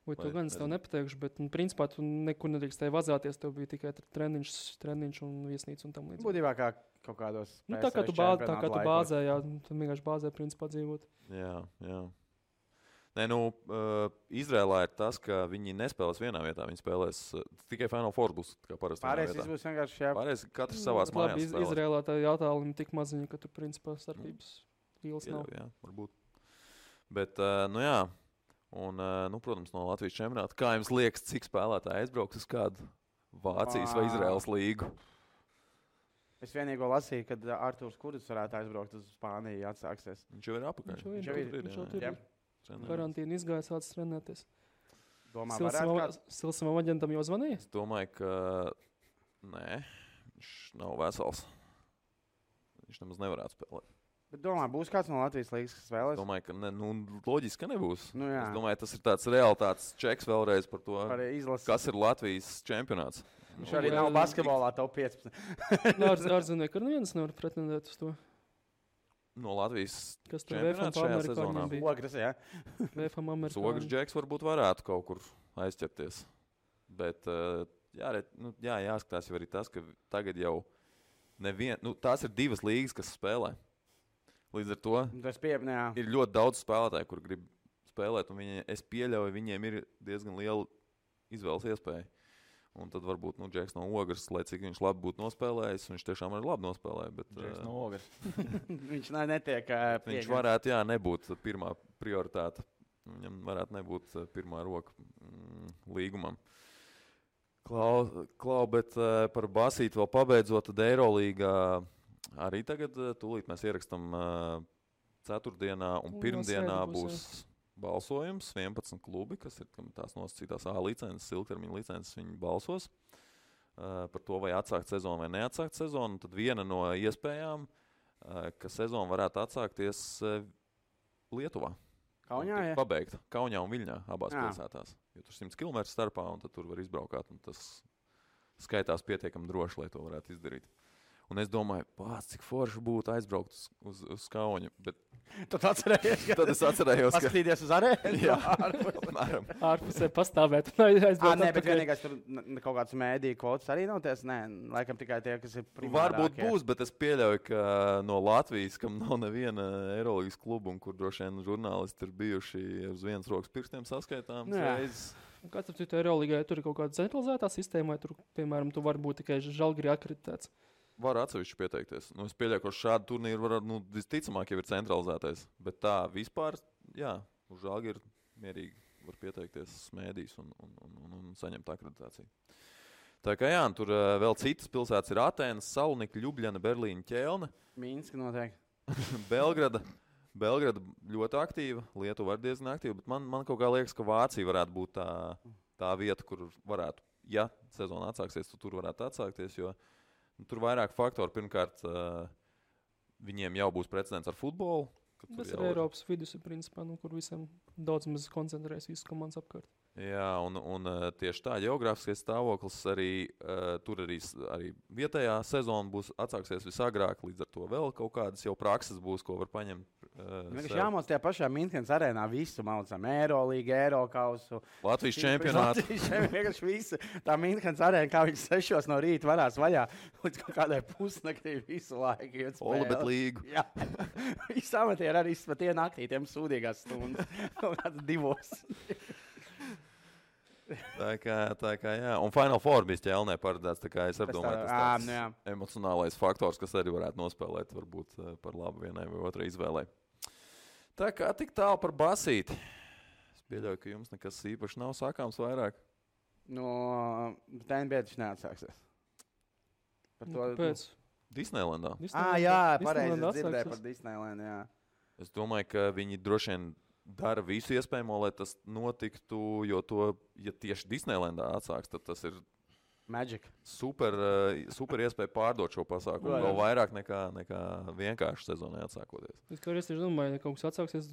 To gan es tev nepateikšu, bet principā tu nekur nedrīkstēji vazāties, tev bija tikai treniņš un viesnīca un tam līdzīgi. Būtībā kā kaut kādos tā kā tu bāzē, jā, tu vienkārši bāzē principā dzīvot. Jā. Izrēlā ir tas, ka viņi nespēlēs vienā vietā, viņi spēlēs tikai Final Four būs kā parasti. Pārējais būs vienkārši Pārējais katrs savās mājās spēlēs. Izrēlā tā jātālumi tik maziņi, ka tu principā starpības līls nav. Jā, varbūt. Bet, protams, no Latvijas čempionāta. Kā jums liekas, cik spēlētāji aizbrauks uz kādu Vācijas vai Izraels līgu? Es vienīgo lasīju, kad Artūrs Kudus varētu aizbraukt uz Spāniju, atsāksies. Viņš jau ir apakaļ. Viņš jau ir. Karantīna izgāja, sācis trenēties. Domā, Silsavam aģentam jau zvanīja? Es domāju, ka nē, viņš nav vesels. Viņš nemaz nevarētu spēlēt. Bet domā, būs kāds no Latvijas līgas, kas vēlēs? Es domāju, ka loģiski, ka nebūs. Jā. Es domāju, tas ir tāds realitātes čeks vēlreiz par to, kas ir Latvijas čempionāts. Viņš arī nav basketbolā top 15. Ārzemnieki ar neviens nevar pretendēt uz to. No Latvijas čempionāts šajā sezonā. Ogres, jā. Ogres džeks varbūt varētu kaut kur aizķerties. Bet jāskatās jau arī tas, ka tagad jau tās ir 2 līgas, kas spēlē. Līdz ar to ir ļoti daudz spēlētāju, kur grib spēlēt, un es pieļauju, viņiem ir diezgan liela izvēles iespēja. Un tad varbūt Džeks no Ogres, lai cik viņš labi būtu nospēlējis, viņš tiešām arī labi nospēlēja. Bet, Džeks no Ogres. Viņš netiek viņš varētu, nebūt pirmā prioritāte. Viņam varētu nebūt pirmā roka līgumam. Klau, bet par basīti vēl pabeidzot, tad Eirolīgā arī tagad tūlīt mēs ierakstam ceturtdienā un pirmdienā būs balsojums. 11 klubi, kas ir tās nosacītās A licences, ilgtermiņa licences, viņi balsos par to, vai atsākt sezonu vai neatsākt sezonu. Un tad viena no iespējām, ka sezona varētu atsākties Lietuvā. Kaunijā, ja? Pabeigta. Kaunijā un Viļņā abās pilsētās. Jo tur 100 km starpā, un tad tur var izbraukāt. Un tas skaitās pietiekami droši, lai to varētu izdarīt. Un es domāju, cik forši būtu aizbraukt uz Kaunu. Bet... Tu atcerējies, Tad es atcerējos, ka... Paskatīties uz arēnu? Jā, apmēram. Ārpusē pastāvēt un aizbraukt. Nē, bet vienīgais tur kaut kāds mēdīju kvotas arī nav ties. Nē, laikam tikai tie, kas ir primārākie. Varbūt būs, bet es pieļauju, ka no Latvijas, kam nav neviena Eirolīgas kluba, un kur droši vien žurnālisti ir bijuši uz vienas rokas pirkstiem saskaitām reizes. Kāds ar citu Eirolīgai, tur ir kaut kāda centralizētā sistēma, vai tur, piemēram, tu vari būt tikai Žalgiri akreditēts? Var atsevišķi pieteikties. Es pieļauju, ka šādu turnīru visticamāk jau ir centralizētais. Bet tā vispār, uz Žalgiri mierīgi var pieteikties smēdīs un saņemt akreditāciju. Tā kā tur vēl citas pilsētas ir Atēnas, Salonika, Ljubļana, Berlīna, Ķelne. Minska noteikti. Belgrada ļoti aktīva, Lietuva arī diezgan aktīva, bet man kaut kā liekas, ka Vācija varētu būt tā vieta, kur varētu, ja sezona atsāksies, tad tur varētu atsākties, jo tur vairāk faktori. Pirmkārt, viņiem jau būs precedents ar futbolu. Tas ir Eiropas vidus, principā, kur visam daudz maz koncentrēs visas komandas apkārt. Jā, un tieši tā geogrāfiskais stāvoklis arī tur arī vietējā sezona būs atsāksies visagrāk, līdz ar to vēl kaut kādas jau prakses būs, ko var paņemt. Jāmāc tajā pašā Minhenes arēnā visu maucam. Eirolīgu, Eirokausu. Latvijas čempionātu. Vienkārši visu. Tā Minhenes arēna, kā viņš 6 no rīta varās vaļā, līdz kaut kādai pusnaktī visu laiku. Olabet līgu. Jā. Visi amatieri arī pat ienāktī, tiem sūdīgās stundas. Kaut kāds 2. Tā kā jā. Un Final Four bija Ķelnē paredzēts, tā kā es arī domāju, tas tāds emocionālais faktors, kas arī varētu nospēlēt varbūt par labu vienai vai otrai izvēlei. Tā kā tik tālu par basīti. Es pieļauju, ka jums nekas īpaši nav sākāms vairāk. Tā NBA taču neatsāksies. Pēc? Disneylandā. Jā, pareizi dzirdēju par Disneylandu, jā. Es domāju, ka viņi droši vien dara visu iespējamo, lai tas notiktu, jo ja tieši Disneylandā atsāks, tad tas ir Magic. Super iespēja pārdot šo pasākumu vēl vairāk nekā vienkārši sezonai atsākoties. Es tieši domāju, ja kaut kas atsāksies,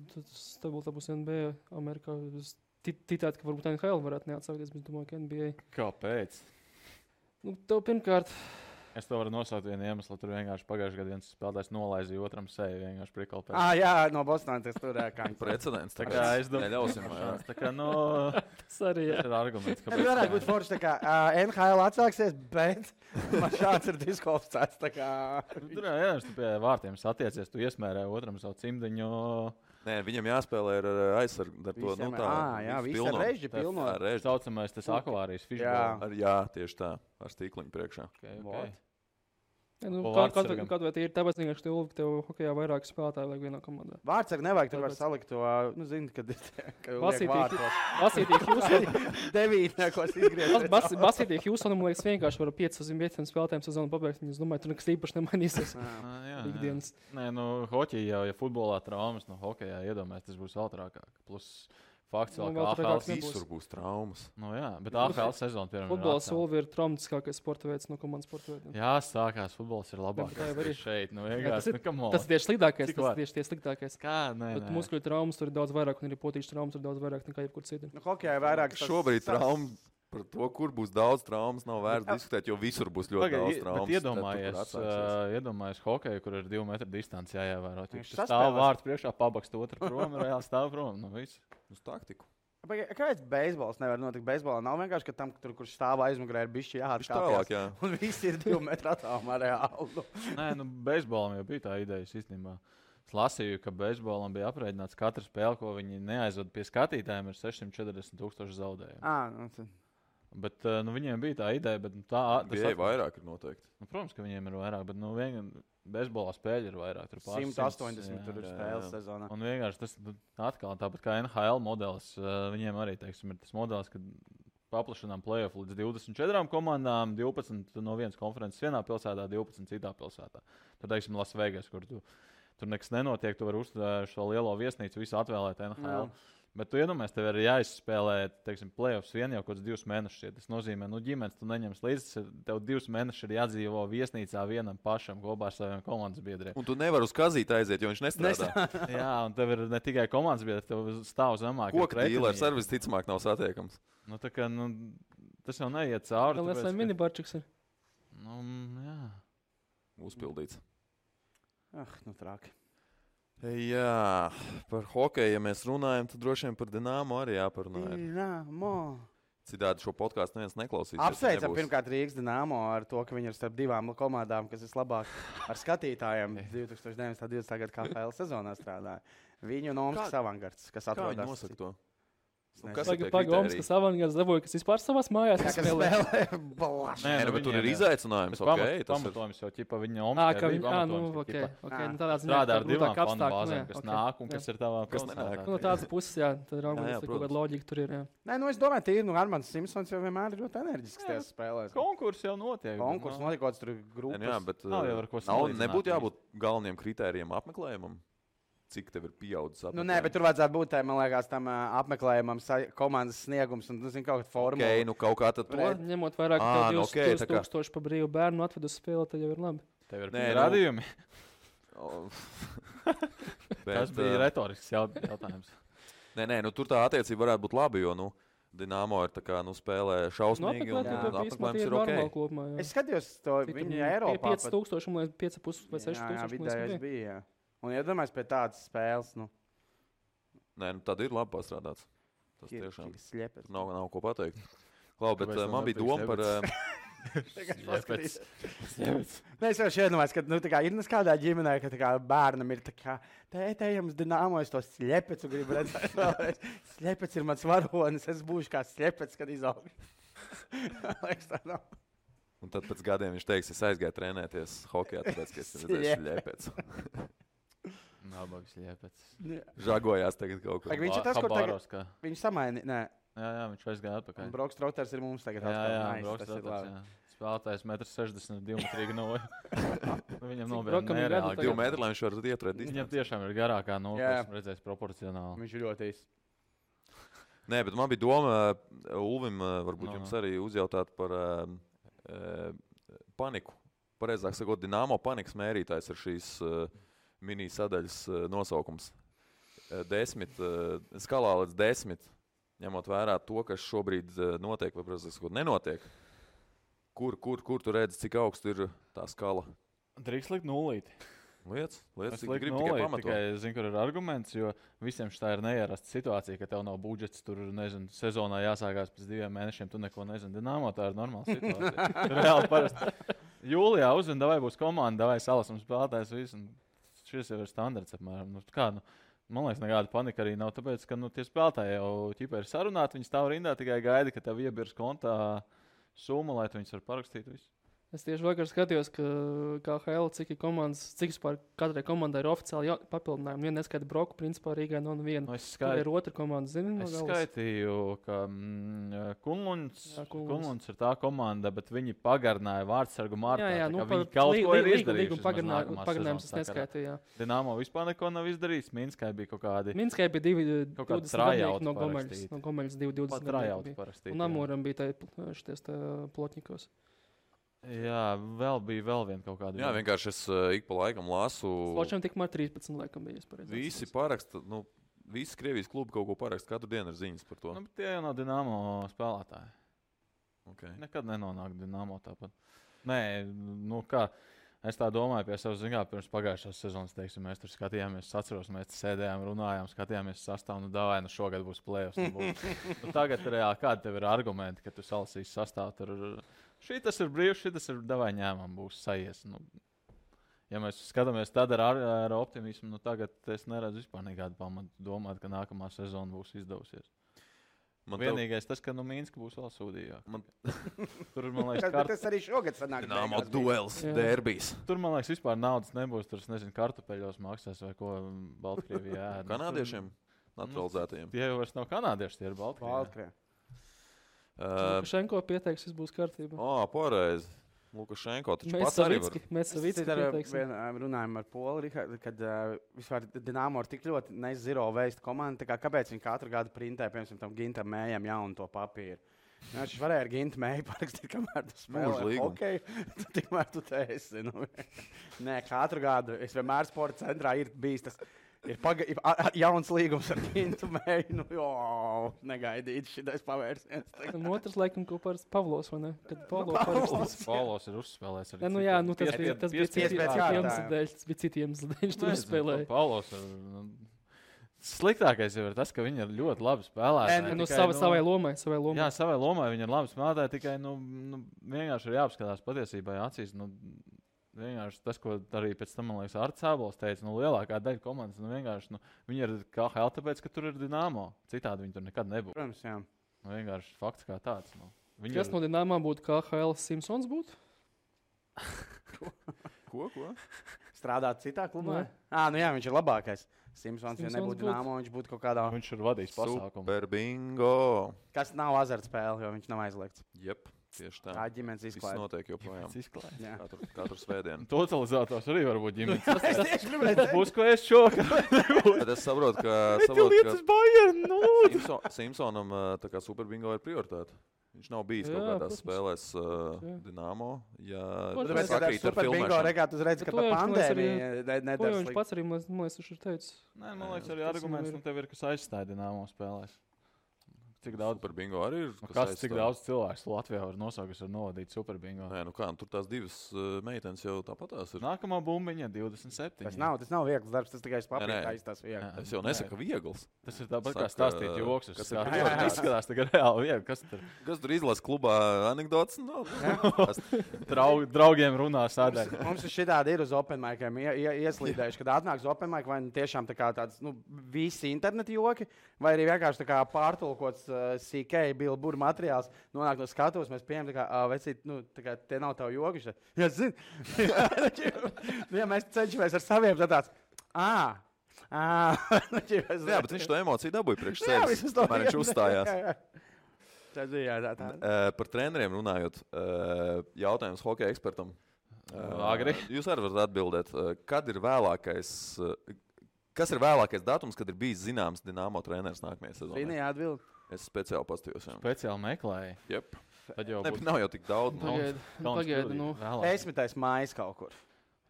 tad būs NBA Amerikā. Es ticētu, ka varbūt NHL varētu neatsākties, bet es domāju, ka NBA. Kāpēc? Tev pirmkārt... Es to varu nosaukt vienu iemeslu. Tur vienkārši pagājušajā gadā viens spēlētājs nolaizīja otram seju. Vienkārši prikalpēc. Jā, no Bostonas tas tur kāds. Precedents. Tā kā es domāju, neļausim. Tas arī ir arguments. Tas varētu būt forši, tā kā NHL atsāksies, bet man šāds ir diskvalificēts. Tur jā, tu pie vārtiem satiecies, tu iesmērē otram savu cimdiņu. Nē, viņam jāspēlē ar aizsargu. Viss ar režģi pilno. Saucamais tas akvārijas fishbowl. Jā, tieši tā. Ar stīkliņu priekšā. Okay. Kādu vai tie ir tāpēc, ka tev hokejā vairāk spēlētāji vajag vienā komandā? Vārtsargi nevajag, tur var salikt to, zini, kad Basītī Hjūsonam. 9, ko es izgriezu. Basītī Hjūsonam, liekas, vienkārši var 5 spēlētājiem sezonu pabeigt. Es domāju, tur nekas īpaši nemainīsies ikdienas. Nē, hoķijā, ja futbolā traumas, hokejā iedomājas, tas būs vēl trakāk. Plus fakts vēl, ka AHL visur būs traumas. Jā, bet AHL sezona, piemēram, futbols ir traumatiskākais sporta veids no komandas sporta veidiem. Jā, sākās futbols ir labākais šeit. Tas ir sliktākais. Tas ir sliktākais. Kā? Nē. Bet muskuļu traumas tur ir daudz vairāk, un arī potīšu traumas ir daudz vairāk nekā jebkur citur. Hokejā ir vairāk. Šobrīd traumas. Par to, kur būs daudz traumas, nav vērts diskutēt, jo visur būs ļoti daudz traumas. Iedomājies hokeju, kur ir 2 metru distance jāievēro. Tas stāv vārds priekšā, pabakst otru prom, reāli stāv prom. Viss. Uz taktiku. Kāpēc beisbols nevar notikt? Beisbolā nav vienkārši, ka tam, kurš stāv aizmugurē, ir bišķi jāatkāpjas. Un visi ir 2 metru attālumā reāli. Nē, beisbolam jau bija tā ideja īstenībā. Es lasīju, ka beisbolam bija aprēķināts katra spēle, ko viņi neaizvada pie skatītājiem, ir 640,000 zaudējumu. Bet viņiem bija tā ideja, bet tā vairāk ir noteikti. Protams, ka viņiem ir vairāk, bet bezbolā spēļi ir vairāk. Tur 180 tur ir spēles sezonā. Un vienkārši tas atkal tāpat kā NHL modelis, viņiem arī, teiksim, ir tas modelis, kad paplašinām play-off līdz 24 komandām, 12 no vienas konferences vienā pilsētā, 12 citā pilsētā. Tur, teiksim, Las Vegas, kur tur nekas nenotiek, tu vari uzturēt šo lielo viesnīcu, visu atvēlēt NHL. Bet tu iedomājies, tev ir jāizspēlē, teiksim, play-offs vien jau kaut kāds 2 mēnešus. Tas nozīmē, ģimenes tu neņems līdzi, tev 2 mēnešus ir jādzīvo viesnīcā vienam pašam kopā ar saviem komandas biedriem. Un tu nevari uz kazīti aiziet, jo viņš nestrādā. Jā, un tev ir ne tikai komandas biedri, tev stāv zemāk. Koka dīlers ar visticamāk nav satiekams. Tas jau neiet cauri. Vēl es minibarčiks ir. Jā. Uzpildīts. Traki. Jā, par hokeju, ja mēs runājam, tad droši vien par Dinamo arī jāparunā. Dinamo. Citādi šo podkāstu neviens neklausīsies. Apsveicam pirmkārt Rīgas Dinamo ar to, ka viņi ir starp 2 komandām, kas vislabāk ar skatītājiem 2019. gada KHL sezonā strādāja. Viņu un Omskas avangards, kas atrodas. Kā viņi nosaka to? Omskas avangards dabūja, kas vispār savās mājās spēlē. Bet tur ir izaicinājums. Pamatojums jau ķipa viņa Omskā. Tādā ziņā strādā ar 2 fanu bāzēm, kas nāk un kas ir tavā pilsētā. No tādas puses, jā, tad kaut kāda loģika tur ir. Nē, es domāju, tīri, Armands Simpsons jau vienmēr ir ļoti enerģisks tajās spēlēs. Konkurss jau notiek. Konkurss notiek, kāds tur ir grupas. Jā, bet nebūtu jābūt galvenajiem kritērijiem apmeklējumam. Cik tev ir pieaudzis apmeklējums? Nē, bet tur vajadzētu būt, man liekas, tam apmeklējumam komandas sniegums un, kaut kāda formula. Kaut kā tad to. Ņemot vairāk, ka 2000 pa brīvu bērnu atved uz spēli, tad jau ir labi. Tev ir radījumi. Tas bija retorisks jautājums. Nē, tur tā attiecība varētu būt labi, jo, Dinamo ir spēlē šausmīgi un apmeklējums ir ok. Kopumā, es skatījos to viņu Eiropā. 5000 vai 5,5 vai 6000. Vidējais bija. Un iedomājos pie tādas spēles. Nē, tad ir labi pastrādāts. Tas tiešām sliepets. Nav ko pateikt. Klau, bet man bija doma par... Sliepets. Nē, es jau šeit domāju, ka ir kādā ģimenē, ka bērnam ir tā kā tētējams Dinamo, es to sliepets un gribu redzēt. Sliepets ir mans varonis, es būšu kā sliepets, kad izaugu. Liekas, tā nav. Un tad pēc gadiem viņš teiks, es aizgāju trenēties hokejā, tāpēc, ka es redzēju sliepets. Nabags Liepets. Žagojās tagad kaut kur. Viņš ir tas, kur tagad viņš samaini. Nē. Jā, viņš aizgāja atpakaļ. Un Broks Troters ir mums tagad. Jā, Broks Troters. Spēlētājs 1,60 m, 2 metri noja. Viņam nobeidz nereāli. 2 metri, lai viņš varētu ieturēt. Viņam tiešām ir garākā noja, esmu redzējis proporcionāli. Viņš ir ļoti īsts. Nē, bet man bija doma, Ulvim, varbūt jums arī uzjautāt par paniku. Pareizāk sakot, Dinamo panikas mērītājs ir šīs mini-sadaļas nosaukums. 10, skalā līdz 10, ņemot vērā to, kas šobrīd notiek, vai, protams, nenotiek. Kur tu redzi, cik augstu ir tā skala? Drīkst likt 0. Lietas, cik tu gribi tikai pamatot. Tikai zinu, kur ir arguments, jo visiem šitā ir neierasta situācija, ka tev nav budžets, tur, nezinu, sezonā jāsākās pēc 2 mēnešiem, tu neko nezini. Dinamo tā ir normāla situācija. Reāli parasti. Jūlijā uzzina, vai būs komanda, vai salasam spēlētājs visu. Šis jau ir standarts apmēram. Man liekas, nekāda panika arī nav, tāpēc, ka tie spēlētāji jau ķipa ir sarunāti, viņi stāv rindā, tikai gaida, ka tev iebirs kontā summa, lai tu viņus var parakstīt visu. Es tieši vakar skatījos, ka KHL cik vispār katrai komandai ir oficiāli papildinājumi. Viena neskaita Broku, principā Rīgai nav neviena. Tur ir otra komanda, zini? Es skaitīju, ka Kunluns ir tā komanda, bet viņi pagarināja vārdsargu martā. Jā, viņi kaut ko ir izdarījuši. Pagarinājums es neskaitīju, jā. Dinamo vispār neko nav izdarījis. Minskai bija kaut kādi... Minskai bija 20 gadnieki no Gomeļas 20 gadnieki. Un Amoram bija šities Plotņikos. Jā, bija vēl viena kaut kāda. Jā, vienkārši es ik pa laikam lasu. Sločam tikmēr 13 laikam bija. Visi paraksta, visi Krievijas klubi kaut ko paraksta, katru dienu ir ziņas par to. Bet tie jau nav Dinamo spēlētāji. Okay. Nekad nenonāk Dinamo tāpat. Nē, kā, es tā domāju pie savas ziņā, pirms pagājušās sezonas, teiksim, mēs tur skatījāmies, atceros, mēs sēdējām, runājām, skatījāmies sastāvu, šogad būs play-offs. Tagad reāli, kādi tev ir argumenti, ka tu salasīsi sastāvu tur? Šitas ir brīvs, šitas ir davai ņēmām, būs sajies. Ja mēs skatāmies tad ar optimismu, tagad es neredzu vispār nekādu pamatu domāt, ka nākamā sezona būs izdevusies. Vienīgais tas, ka Minska būs vēl sūdīgāk. Tur, man liekas, tas arī šogad sanāk. Dinamo duels, derbijs. Tur, man liekas, vispār naudas nebūs. Tur, nezinu, kartupeļos maksās vai ko Baltkrievijā ēd. Kanādiešiem? Naturalizētajiem? Tie jau vairs nav kanādieši, tie ir Baltkrievijā. Lukašenko pieteiks, viss būs kārtībā. Pareizi. Lukašenko taču pats arī var. Mēs Savicki pieteiksim. Runājam ar Polu, kad vispār Dinamo ir tik ļoti nezero veist komanda, kāpēc viņi katru gadu printē, piemēram, tam Gintam Mējam jaunu to papīru. Viņš varēja ar Gintu Mēju parakstīt, kamēr tu spēlē hokeju, tikmēr tu te esi. Nē, katru gadu. Es vienmēr sporta centrā ir bijis tas. Ir jauns līgums ar Gintu Mēju. Negaidīt šitais pavērsiens. Un otrs, laikam, kopā ar Pavlos, vai ne? Kad Pavlos ir uzspēlējis arī. Tas bija citi iemesli dēļ, viņš tur uzspēlēja. Pavlos ir... Sliktākais jau ir tas, ka viņi ir ļoti labi spēlētāji. Savai lomai. Jā, savai lomai viņi ir labi spēlētāji, tikai vienkārši ir jāapskatās patiesībā acīs. Vienkārši tas, ko arī pēc tam, man liekas, Arts Ābols teica, lielākā daļa komandas, vienkārši viņi ir KHL, tāpēc, ka tur ir Dinamo. Citādi viņi tur nekad nebūtu. Protams, jā. Vienkārši fakts kā tāds. Kas no Dinamo būtu KHL Simpsons būtu? Ko? Strādāt citā klubā? Jā, viņš ir labākais. Simpsons, ja nebūtu Dinamo, viņš būtu kaut kādā... Viņš ir vadījis pasākumu. Super bingo! Kas nav azartspēle, jo viņš nav aizliegts. Jep. Tieši tā. Tā ģimenes izklāja. Viss notiek joprojām. Katru svētdienu. Totalizators arī var būt ģimenes. Tas būs, ko es šokā. Bet es saprotu, ka Lietas Bayern, Simpsonam tā kā Super bingo ir prioritāte. Viņš nav bijis kaut kādās spēlēs Dinamo. Tāpēc, ka Super bingo regāt uzreiz, ka pa pandēmiju nedara slikti. Viņš pats arī, man liekas, viņš ir teicis. Nē, man liekas, arī arguments tev ir, kas aizstāja Dinamo spēlēs. Cik daudz Super bingo arī ir? Cik daudz cilvēks Latvijā var nosaukt, kas var novadīt Super bingo? Nē, tur tās divas meitenes jau tāpatās ir. Nākamā bumbiņa 27. Tas nav viegls darbs, tas tikai papīrs tas viegli. Es jau nesaku viegls. Tas ir tāpat kā stāstīt joks. Tas izskatās tagad reāli viegli. Kas tur izlasa klubā anekdotas? Draugiem runā sādēļ. Mums ir šitādi ir uz open miciem ieslīdējuši, kad atnāks open mic, vai tiešām tā kā tāds, visi interneti joki, vai arī vienkārši tā kā pārtulkots CK, Bilbur materiāls, nonāk no skatuves, mēs pieņemam, vecīt, te nav tavu jogi. Jā, zini. Jā, mēs cenšamies ar saviem tāds, jā, bet viņš to emociju dabūja priekš sevis, kamēr viņš uzstājās. Par treneriem runājot, jautājums hokeja ekspertam. Agri. Jūs arī varat atbildēt, kas ir vēlākais datums, kad ir bijis zināms Dinamo treneris nākamajā sezonā? Zini, atbild. Es speciāli pastījos. Speciāli meklēju. Jep. Nav jau tik daudz. Pagaidi, 10. maijs kaut kur.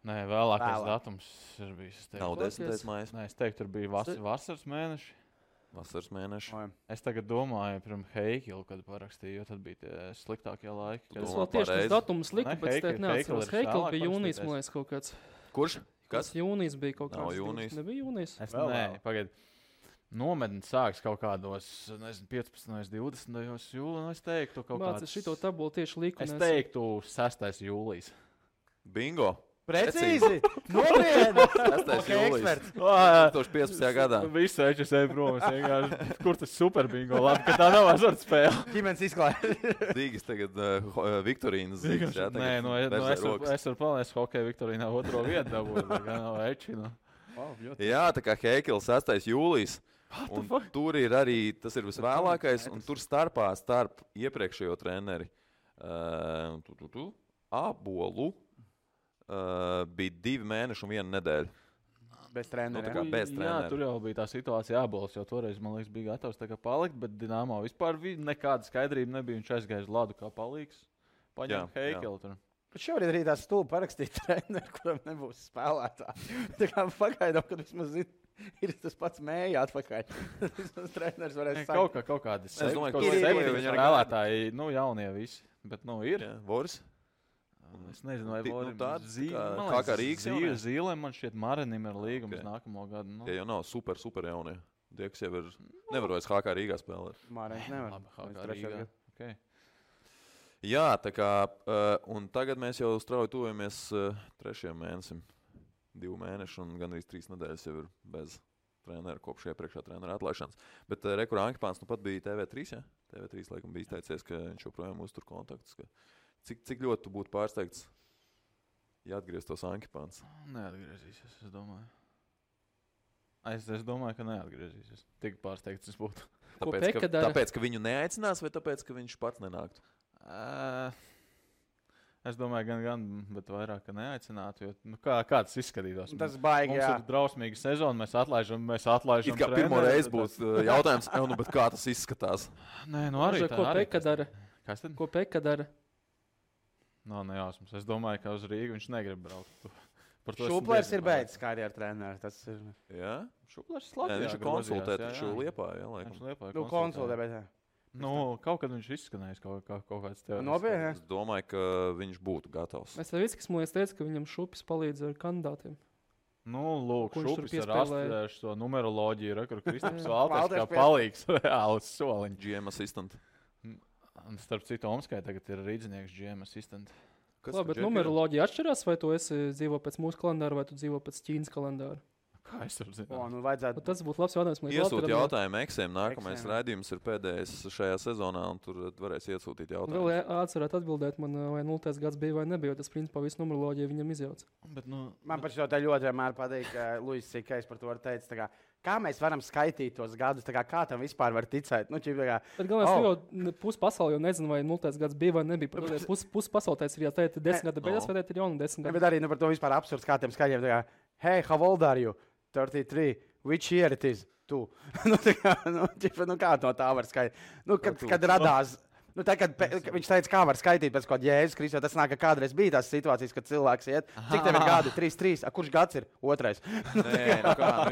Nē, vēlākais datums ir bijis. Nav 10. maijs. Nē, es teiktu, tur bija vasaras mēneši. Vasaras mēneši. Es tagad domāju par Heikilu, kad parakstīju, jo tad bija tie sliktākie laiki. Tas vēl tieši tas datums lika, bet es teiktu, neatceros. Heikil bija jūnijas, man liekas, kaut kāds. Kurš? Kas? Jūnijas bija kaut kāds. Nav jūnijas. Nebija jūnijas. Nē, pagaidi. Nometni sāks kaut kādos, 15. un 20. jūlijā. Es teiktu, kaut kāds... Mācies šito tabulu tieši liku. Es teiktu 6. jūlijas. Bingo! Precīzi! Nopietni! 6. jūlijas. 2015. gadā. Visu HSE prom. Kur tas super bingo? Labi, ka tā nav azartspēle. Ģimenes izklāja. Dīgas tagad Viktorīnas zīgas. Nē, es varu palēst hokeja Viktorīnā 2. vietu dabūt. Nav Ečina. Jā, tā kā Heikils 6. jūlijas. Un tur ir arī, tas ir visvēlākais, un tur starp iepriekšējo treneri Ābolu bija 2 mēneši un 1 nedēļa. Bez trenera. Jā, tur jau bija tā situācija Ābols, jo toreiz, man liekas, bija gatavs palikt, bet Dinamo vispār nekāda skaidrība nebija. Viņš aizgāja uz ladu kā palīgs. Paņēma Heikilu tur. Bet šobrīd arī tā stulba parakstīt treneru, kuram nebūs spēlētāji. Tā kā pagaidām, kad vismaz ir tas pats Mēja atpakaļ. Tas treneris varēs sākt. Kaut kādi spēlētāji, jaunie visi. Bet, ir. Voris? Es nezinu, vai Voris. Kā Rīgas Zīlēm man šķiet Marinim ir līgums nākamo gadu. Tie jau nav super jaunie. Tie, kas jau ir, nevar vairs HK Rīgā spēlēt. Marinis nevar. HK Rīgā. Okay. Jā, tā kā, un tagad mēs jau strauji tuvojamies 3. mēnesim. 2 mēneši un gandrīz 3 nedēļas jau ir bez. treneru kopš iepriekšējā treneru atlaišanas. Bet Rekur Ankipāns nu pat bija TV3, ja? TV3 laikam bija izteicies, ka viņš joprojām uztur kontaktus. Cik ļoti tu būtu pārsteigts, ja atgrieztos Ankipāns? Neatgriezīsies, es domāju. Es domāju, ka neatgriezīsies. Tik pārsteigts es būtu. Tāpēc, ka viņu neaicinās, vai tāpēc, ka viņš pats nenāktu? Es domāju, gan, bet vairāk, ka neaicinātu, jo kā tas izskatītos? Tas baigi, mums ir drausmīga sezona, mēs atlaižam It kā pirmo reizi būs jautājums, bet kā tas izskatās? Nē, arī tā. Ko Peka dara? Kas tad? Ko Peka dara? Nav nejausmas. Es domāju, ka uz Rīgu viņš negrib braukt. Šuplers ir beidzis karjeru treneru. Tas ir... Jā? Šuplers ir labi. Viņš ir konsultēt taču Liepājā, laikam. Konsultē, bet jā. Kaut kad viņš izskanējis kaut kāds teorijas. Nopietni. Es domāju, ka viņš būtu gatavs. Es tev viskis, man teica, ka viņam Šupis palīdz ar kandidātiem. Lūk, Šupis ar astudējuši to numeroloģiju, kur Kristaps Valters kā palīgs reāls soliņš. GM assistant. Starp citu, Omskai tagad ir rīdzinieks GM assistant. Labi, bet numeroloģija atšķirās, vai tu dzīvo pēc mūsu kalendāra, vai tu dzīvo pēc Ķīnas kalendāra? Kā es varu zināt? Vajadzētu... Tas būtu labs jautājums. Iesūt jautājumu Eksēm. Nākamais raidījums ir pēdējais šajā sezonā, un tur varēs iesūtīt jautājumus. Vēl atcerēt atbildēt man, vai 0. gads bija vai nebija, jo tas principā visu numeroloģiju viņam izjauc. Man par šo tā ļoti vienmēr patīk, ka Luis Sikais par to teica, kā mēs varam skaitīt tos gadus, kā tam vispār var ticēt. Bet galvenais, jau pusi pasauli jau nezinu, vai 0. gads bija vai nebija. Pusi pasauli teica, ja teikt 10 gada beigās, vai teikt ir jauna 10 gada. Bet arī par to vispār absurds kā tiem skaļiem. Hey, how old are you? 33. Which year it is? Kā no tā var skaitīt? Kad radās... Tā, kad viņš teica, kā var skaitīt pēc kaut kāda Jēzus Kristus, tas nāk, ka kādreiz bija tās situācijas, kad cilvēks iet. Cik tev ir gadi? 3. Kurš gads ir? 2.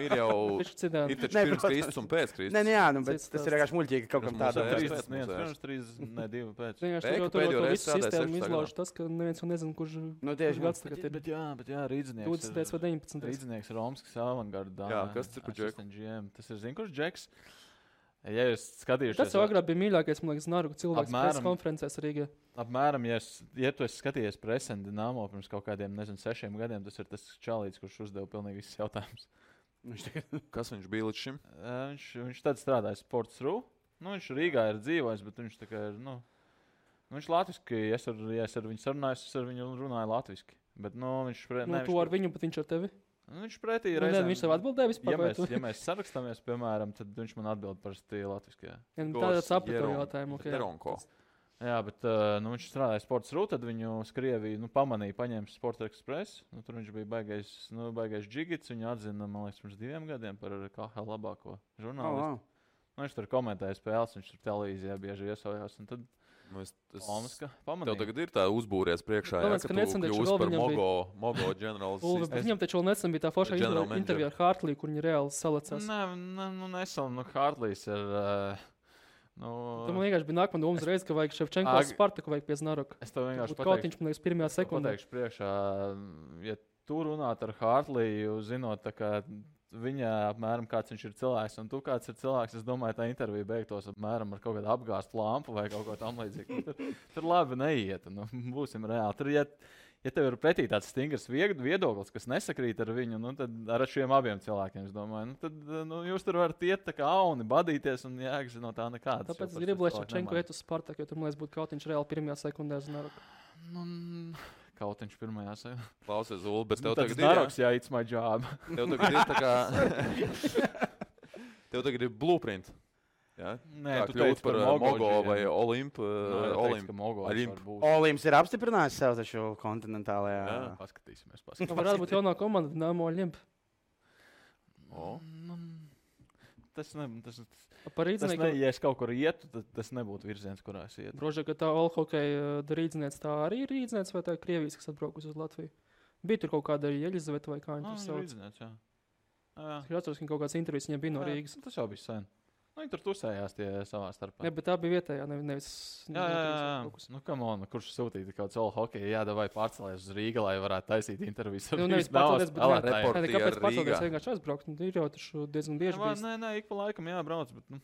Ir jau ir taču pirms Kristus un pēc Kristus. Bet tas ir vienkārši muļķīgi kaut kam tādam. 2 pēc. Tur visu sistēmu izlauž tas, ka neviens jau nezin, kurš gads tagad ir. Bet jā, rīdzinieks. 20. vai 19. Rīdzinieks Romskis avangardā. Jā, kas ir par Džeku? Tas ir, zin, kurš Džeks? Ja jūs skatījušies... Tas jau agrāk bija mīļākais, man liekas, Naruga cilvēks preses konferencēs Rīgā. Apmēram, ja tu esi skatījies Presen Dinamo pirms kaut kādiem, 6 gadiem, tas ir tas čalīts, kurš uzdeva pilnīgi visus jautājumus. Kas viņš bija līdz šim? Viņš tad strādāja Sports.ru. Viņš Rīgā ir dzīvojis, bet viņš tā kā ir, viņš latviski, ja es ar viņu sarunājos, es ar viņu runāju latviski. Bet, viņš... Tu ar viņu, bet viņš ar tevi? Viņš pretī reizēm... Viņš tev atbildēja vispār? Ja mēs sarakstāmies, piemēram, tad viņš man atbild parasti latviski. Tāda sapratu jautājumu. Jā, bet viņš strādāja Sports.ru, tad viņu Krievija pamanīja, paņēma Sport Express. Tur viņš bija baigais džigits, viņu atzina, man liekas, pirms 2 gadiem par KHL labāko žurnālistu. Viņš tur komentēja spēles, viņš tur televīzijā bieži iesojās. Un tad tev tagad ir tā uzbūries priekšā, ka tu kļūsi par Mogo ģenerālis. Viņam taču vēl nesen bija tā foršā intervija ar Hartliju, kur viņi reāli salecās. Nesen, Hartlijs ir... Tu man vienkārši bija nākamā domas reize, ka vajag Ševčenko Spartaku vajag pie Znaroka. Es tev vienkārši pateikšu. Man liekas, pirmajā sekundē. Pateikšu priekšā, ja tu runāt ar Hartliju, zinot, tā kā... Viņa apmēram kāds viņš ir cilvēks, un tu kāds ir cilvēks. Es domāju, tā intervija beigtos apmēram ar kaut kādu apgāstu lampu vai kaut ko tam līdzīgu. Tur labi neiet, būsim reāli. Tur, ja tev ir pretī tāds stingrs viedoklis, kas nesakrīt ar viņu, tad ar šiem abiem cilvēkiem, es domāju, tad jūs tur varat iet tā kā auni, badīties un jēgas no tā nekādas. Tāpēc es gribu, lai Ševčenko iet uz Spartaku, jo tur, man liekas, būtu kaut viņš reāli pirmajā sekundē Znaroka. Kautiņš pirmajā sēdē. Klausies, Ulu, bet tev tagad Znaroks, jā, it's my job. Tev tagad ir tā kā... Tev tagad ir blueprint. Jā? Nē, tu teici par Mogo vai Olimpu. Olimps ir apstiprinājis sev taču kontinentālajā. Jā, paskatīsimies. Varētu būt jaunā komanda Dinamo Olimp. Ja es kaut kur ietu, tad tas nebūtu virziens, kurā es ietu. Droši, ka tā Olhokeja rīdzniece tā arī ir rīdzniece, vai tā ir Krievijas, kas atbraukus uz Latviju? Bija tur kaut kāda Jeļizaveta vai kā viņa tur sauc? Rīdzniece, jā. Es atceros, ka kaut kāds intervijas viņam bija no Rīgas. Tas jau bija sen. Viņi tur tusējās tie savā starpā. Jā, bet tā bija vietējā, nevis... Jā. Come on, kurš sūtīja kaut kādu hokeju, vai pārcelēs uz Rīga, lai varētu taisīt intervijas. Nevis pārcelēs, bet kāpēc pārcelēs vienkārši aizbraukt? Ir jau taču diezgan bieži bijis. Nē, ik pa laikam jābrauc, bet...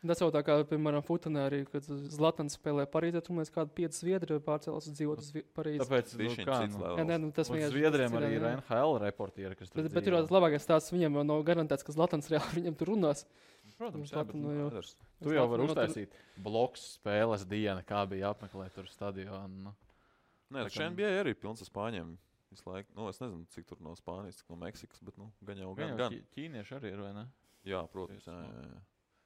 Tas jau tā kā, piemēram, Futenē arī, kad Zlatans spēlē Parīzē, tur mēs kādu 5 zviedri pārcēlās uz dzīvot uz Parīzi. Tāpēc, tas Zviedriem arī ir NHL reportieri, kas tur bet ir tas labākais stāsts, viņiem jau nav garantēts, ka Zlatans reāli viņiem tur runās. Protams, tu jau vari uztaisīt bloks spēles diena, kā bija apmeklēt tur stadionu. Nē, šeit bija arī pilns ar spāņiem. Visu laiku. Es nezinu, cik tur no Spānijas, cik no Meksikas, bet gan jau. Ķīnieši arī ir, vai ne? Jā, protams.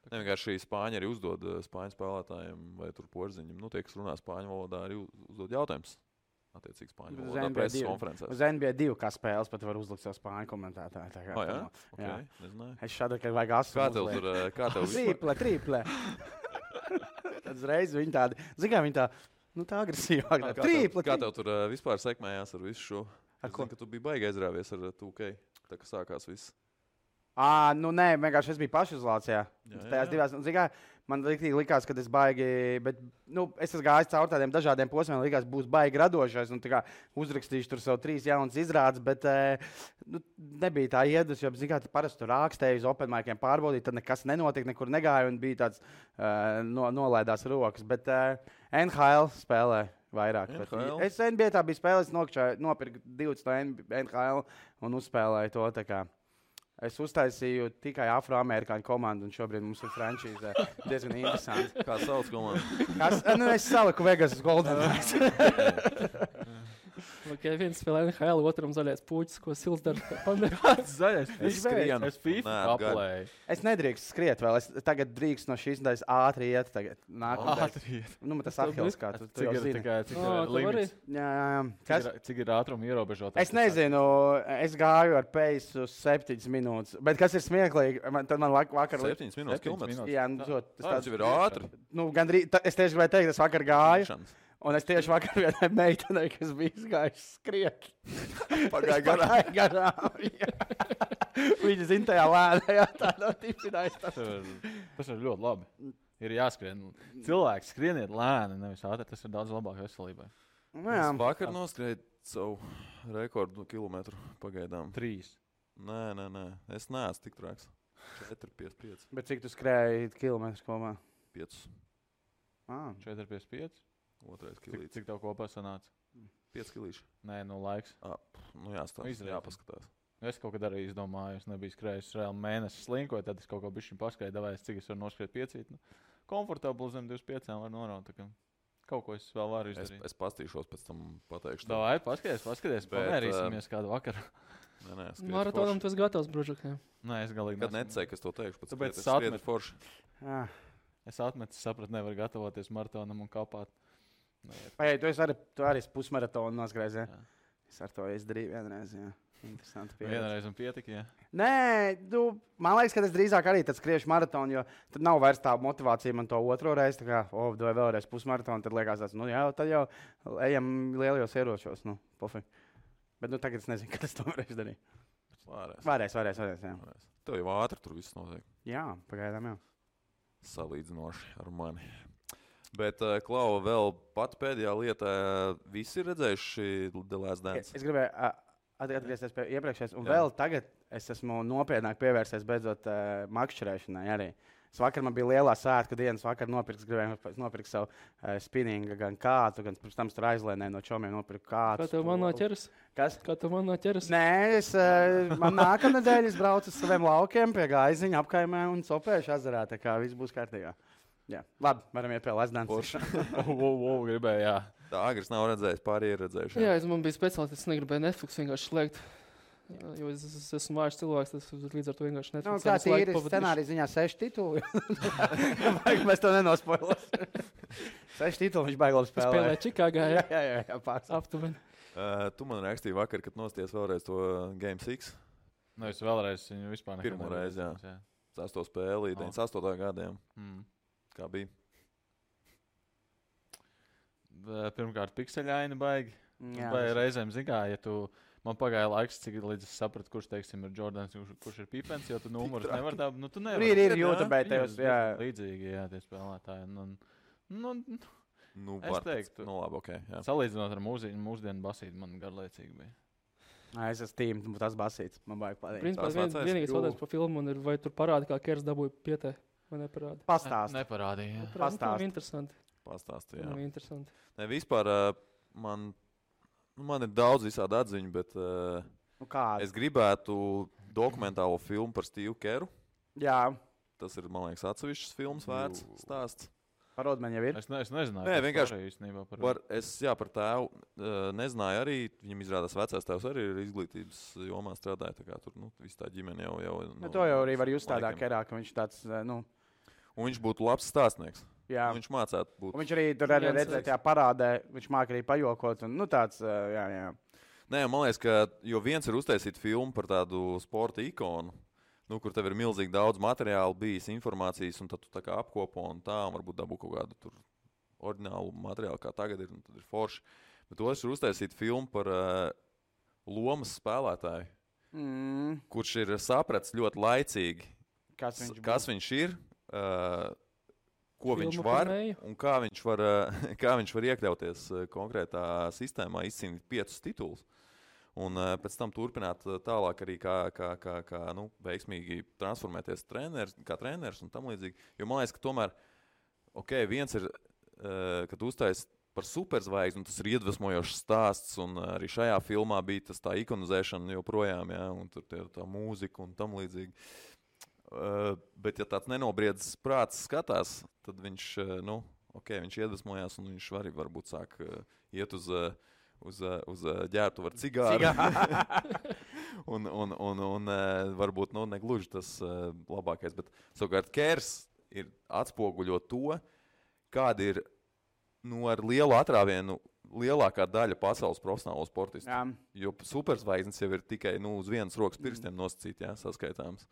Ne, vienkārši spāņi arī uzdod spāņu spēlētājiem vai tur porziņiem. Tie, kas runā spāņu valodā, arī uzdod jautājumus. Attiecīgi spāņu valodā preses konferencēs. Uz NBA 2 kā spēles pat var uzlikt savu spāņu komentētāju. Jā? Okay. Nezināju. Es šādu, ka vajag asu. Kā tev triple. Tad uzreiz viņi tādi, zin kā viņi tā, tā agresīvāk. Triple. Kā tev tur vispār sekmējās ar visu šo? Es zinu, ka tu biji baigi aizrāvies ar 2K, tā kā sākās viss. Nē, vienkārši es biju pašizolācijā. Tajās divās, man likās, ka es baigi, bet es esmu gājis caur tādiem dažādiem posmiem, likās, būs baigi radošais, un uzrakstīšu tur savu 3 jaunas izrādes, bet nebija tā iedus, jo, parasti tur rākstēju uz open miciem pārbaudīt, tad nekas nenotika, nekur negāja, un bija tāds nolaidās rokas, bet NHL spēlē vairāk. Es NBA tā bija spēlē, es nopirku 20 no NHL un uzspēlēju to tā kā. Es uztaisīju tikai afroamerikāņu komandu, un šobrīd mums ir frančīze diezgan interesanti. Kā sauc komandu? Es saliku Vegas Golden Knights. Viens spēlē NHL, otram zaļais puķis, ko Sils dara. Zaļais puķis skrien. Es FIFA aplēju. Es nedrīkst skriet vēl. Es tagad drīkst no šīs nedēļas ātri iet. Ātri iet. Tas Ahils, kā tu jau zini. Cik ir limits? Jā. Cik ir ātruma ierobežotājs? Es nezinu. Es gāju ar peisu 7 minūtes. Bet kas ir smieklīgi? Tad man vakar... 7 minūtes kilometrus? Jā, tas jau ir ātri. Es tieši gribēju teikt, es vakar gāju. Un es tieši vakar vienai meitenei, kas bija izgājusi skriet. Pagāja garām. Viņa zina tajā lēnajā tādā tipinājis. Tas ir ļoti labi. Ir jāskrien. Cilvēks skrieniet lēni, nevis ātri. Tas ir daudz labāk veselībai. Es vakar noskrēju savu rekordu kilometru pagaidām. 3. Nē. Es neesmu tik traks. 4,55. Bet cik tu skrēji kilometrus kopā? 5. 4,55? Otrais kilīts. Cik tev kopā sanāca? 5 kilīši. Nē, laiks. Jāpaskatās. Es kaut kad arī izdomāju, es nebiju skrējis reāli mēnesi slinkoju, tad es kaut ko bišķiņ paskaidu, davāju, cik es varu noskriet 5. Komfortabli zem 25 var noraut. Kaut ko es vēl varu izdarīt. Es pastīšos, pēc tam pateikšu. Davai, paskaties, pamērīsimies kādu vakaru. Maratonam tu esi gatavs, Bružukiem? Nē, es galīgi kad necēju, kas to teikšu. Tāpēc es atmetu forši. Es atmetu, sapratu, nevar gatavoties maratonam un kāpāt. Tu arī pusmaratonu noskrēji, ja? Es ar to izdarīju vienreiz, jā. Interesanti pieredze. Vienreiz un pietika, jā? Nē, man liekas, ka es drīzāk arī tad skriešu maratonu, jo tad nav vairs tā motivācija man to otro reizi, tā kā, vai vēlreiz pusmaratonu, tad liekas tāds, tad jau ejam lielajos ieročos, pofīgi. Bet tagad es nezinu, kad es to varēšu darīt. Varēs, jā. Tev jau ātri tur viss notiek. Jā, pagaidām jau. Salīdzinoši ar mani. Bet, Klau, vēl pat pēdējā lietā visi ir redzējuši The Last Dance? Es gribēju atgriezties pie iepriekšējās, un vēl tagad es esmu nopietnāk pievērsies beidzot makšķerēšanai arī. Vakar man bija lielā svētku dienas, vakar gribēju nopirkt savu spinningu, gan kātu, gan pirms tam tur aizlēnēju no čomiem nopirku kātu. Kā tev man noķeras? Kas? Kā tev man noķeras? Nē, man nākamnedēļ es braucu uz saviem laukiem pie Gaiziņa apkaimē un Sopēšu ezerā, tā kā viss būs kārtībā. Jā, labi, varam iet pie Last Dance. Gribēju, jā. Tā Agris nav redzējis, pārējie ir redzējuši. Jā, man bija speciāls, es negribēju Netflix vienkārši slēgt. Jo es esmu vājš cilvēks, tas līdz ar to vienkārši Netflix. Kā tīri scenārija ziņā 6 tituli? Mēs to nenospoilosim. 6 tituli viņš baigi labi spēlē. Spēlē Čikāgā, jā. Jā, pārs. Aptuveni. Tu man rakstīji vakar, kad nosties vēlreiz to Game 6. Es vēlreiz viņu vispār nekad pirmo reizi, jā. Cesto spēlī, 98. gadiem. Kā bija? Pirmkārt, pikseļaini baigi. Vai reizēm zigā, ja tu... Man pagāja laiks, cik līdz es sapratu, kurš, teiksim, ir Jordans, kurš ir Pipens, jo tu numurus nevar tā... Tu nevar. Ir YouTube, tev, jā. Līdzīgi, jā, tie spēlētāji. Es teiktu. Labi, ok. Jā. Salīdzinot ar mūsdienu basīti, man garlaicīgi bija. Es esmu tīm, tas basīts. Man baigi patīk. Principā vienīgais jautājums par filmu ir, vai tur parāda, kā Kers dabūja pietē. Man neparāda. Pastāst. Neparādīja. Pastāst. Nav interesanti. Pastāsti, jā. Nav interesanti. Ne, vispār man ir daudz visādi atziņu, bet es gribētu dokumentālo filmu par Steve Keru. Jā. Tas ir, man liekas, atsevišķs filmas vērts stāsts. Par Rodmanu jau ir. Es nezināju. Nē, vienkārši īstenībā par tēvu nezināju arī. Viņam izrādās vecais tēvs arī ir izglītības jomā strādāja. Tā kā tur, viss tā ģimene jau To jau arī var just tādā kerā, ka viņš tāds, Un viņš būtu labs stāstnieks. Jā. Viņš mācētu būt. Un viņš arī tur arī redzēja tajā parādē, viņš māk arī pajokot un, tāds, jā. Nē, man liekas, ka jo viens ir uztaisīt filmu par tādu sporta ikonu, kur tev ir milzīgi daudz materiālu bijis, informācijas, un tad tu tā kā apkopo un varbūt dabū kaut kādu tur oriģinālu materiālu, kā tagad ir, un tad ir forši. Bet otrs ir uztaisīt filmu par lomas spēlētāju, kurš ir sapratis ļoti laicīgi, kas viņš ir, ko viņš var un kā viņš var iekļauties konkrētā sistēmā, izcīnīt 5 titulus. Un pēc tam turpināt tālāk arī kā veiksmīgi transformēties kā treneris un tam līdzīgi. Jo man liekas, ka tomēr, viens ir, kad uztais par superzvaigzni, tas ir iedvesmojošs stāsts, un arī šajā filmā bija tas tā ikonizēšana joprojām, jā, un tur tā mūzika un tam līdzīgi. Bet ja tāds nenobriedzis prāts skatās, tad viņš, viņš iedvesmojās, un viņš arī varbūt sāk iet uz ģērbtu ar cigāru. un varbūt negluži tas labākais. Bet savukārt Kers ir atspoguļo to, kāda ir ar lielu atrāvienu lielākā daļa pasaules profesionālo sportistu. Jā. Jo superzvaigznes jau ir tikai uz vienas rokas pirkstiem nosacīt, saskaitāms.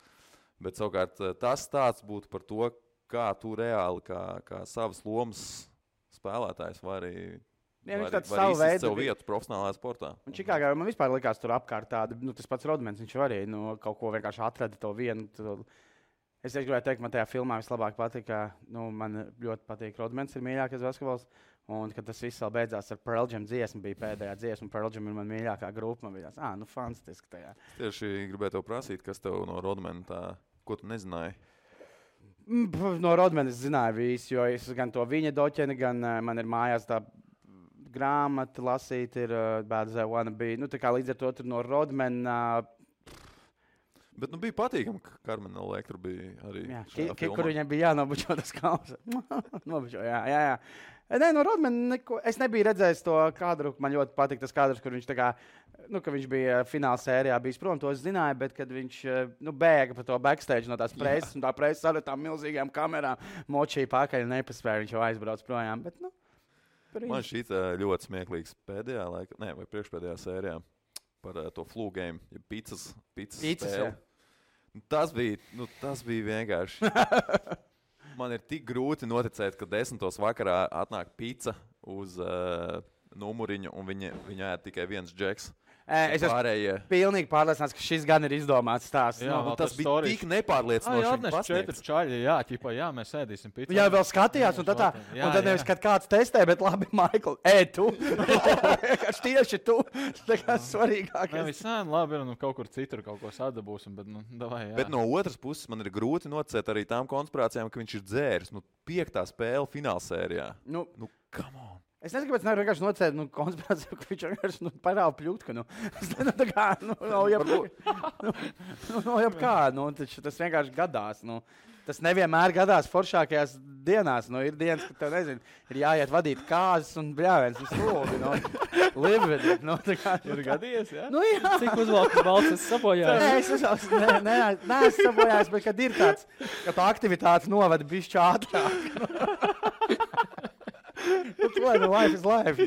Bet savukārt tas stāsts būtu par to, kā tu reāli, kā savas lomas spēlētājs vari izsist savu vietu profesionālajā sportā. Un Čikāgā man vispār likās tur apkārt tāda, tas pats Rodmans, viņš arī kaut ko vienkārši atrada to vienu. Es gribēju teikt, man tajā filmā vislabāk patika, man ļoti patīk Rodmans, ir mīļākais basketbols, un kad tas viss vēl beidzās ar Pearl Jam dziesmu, bija pēdējā dziesma, Pearl Jam ir man mīļākā grupa, man bija tāds, fantastiski tajā. Tieši gribēju tev prasīt, kas tev no Rodmana tā, ko tu nezināji? No Rodmana es zināju visu, jo es gan to viņa doķeni, gan man ir mājās tā grāmata lasīt, ir Bad as I Wanna Be. Tā kā līdz ar to tur no Rodmana. Bet bija patīkami, ka Karmena Elektra bija arī šajā filmā. Kur viņam bija jānobučo tas kauls. Nobučo, jā. Nē, no Rodmana neko. Es nebiju redzējis to kadru. Man ļoti patīk tas kadrs, kur viņš tā kā, ka viņš bija fināla sērijā bijis prom, to es zināju, bet kad viņš bēga pa to backstage no tās preses, un tā preses ar tām milzīgām kamerām močīja pakaļ, nepaspēja, viņš jau aizbrauc projām, bet, Man šī ļoti smieklīgs pēdējā laikā, vai priekšpēdējā sērijā par to flu game, ja pizzas spēli. Tas bija vienkārši. Man ir tik grūti noticēt, ka 10. vakarā atnāk pizza uz numuriņu, un viņa ēd tikai viens džeks. Es esmu pilnīgi pārliecināts, ka šis gan ir izdomāts stāsts. Tas bija tik nepārliecinoši. Atneš 4 čaļi, jā, mēs ēdīsim pizzu. Jā, vēl skatījās, un tad nevis, kad kāds testē, bet labi, Maikl, tu. Tieši tu. Tā kā svarīgākais. Viss labi, kaut kur citur kaut ko sadabūsim, bet, davai, jā. Bet no otras puses man ir grūti noticēt arī tām konspirācijām, ka viņš ir dzēris. 5. spēle finālsērijā. Come on. Es nezinu, kāpēc nevaru vienkārši nocēt konspirāciju, ka viņš vienkārši parāda pļūtku. Es nezinu, tā kā, tas vienkārši gadās. Tas nevienmēr gadās foršākajās dienās. Ir dienas, kad tev, nezinu, ir jāiet vadīt kāzas un bļāviens vislūgi. Live with it. Ir gadījies, jā? Jā. Cik uzvalkas balts es sapojājos? Nē, es sapojājos, bet kad ir tāds, ka tā aktivitātes novada bišķi ātrāk. Life is life.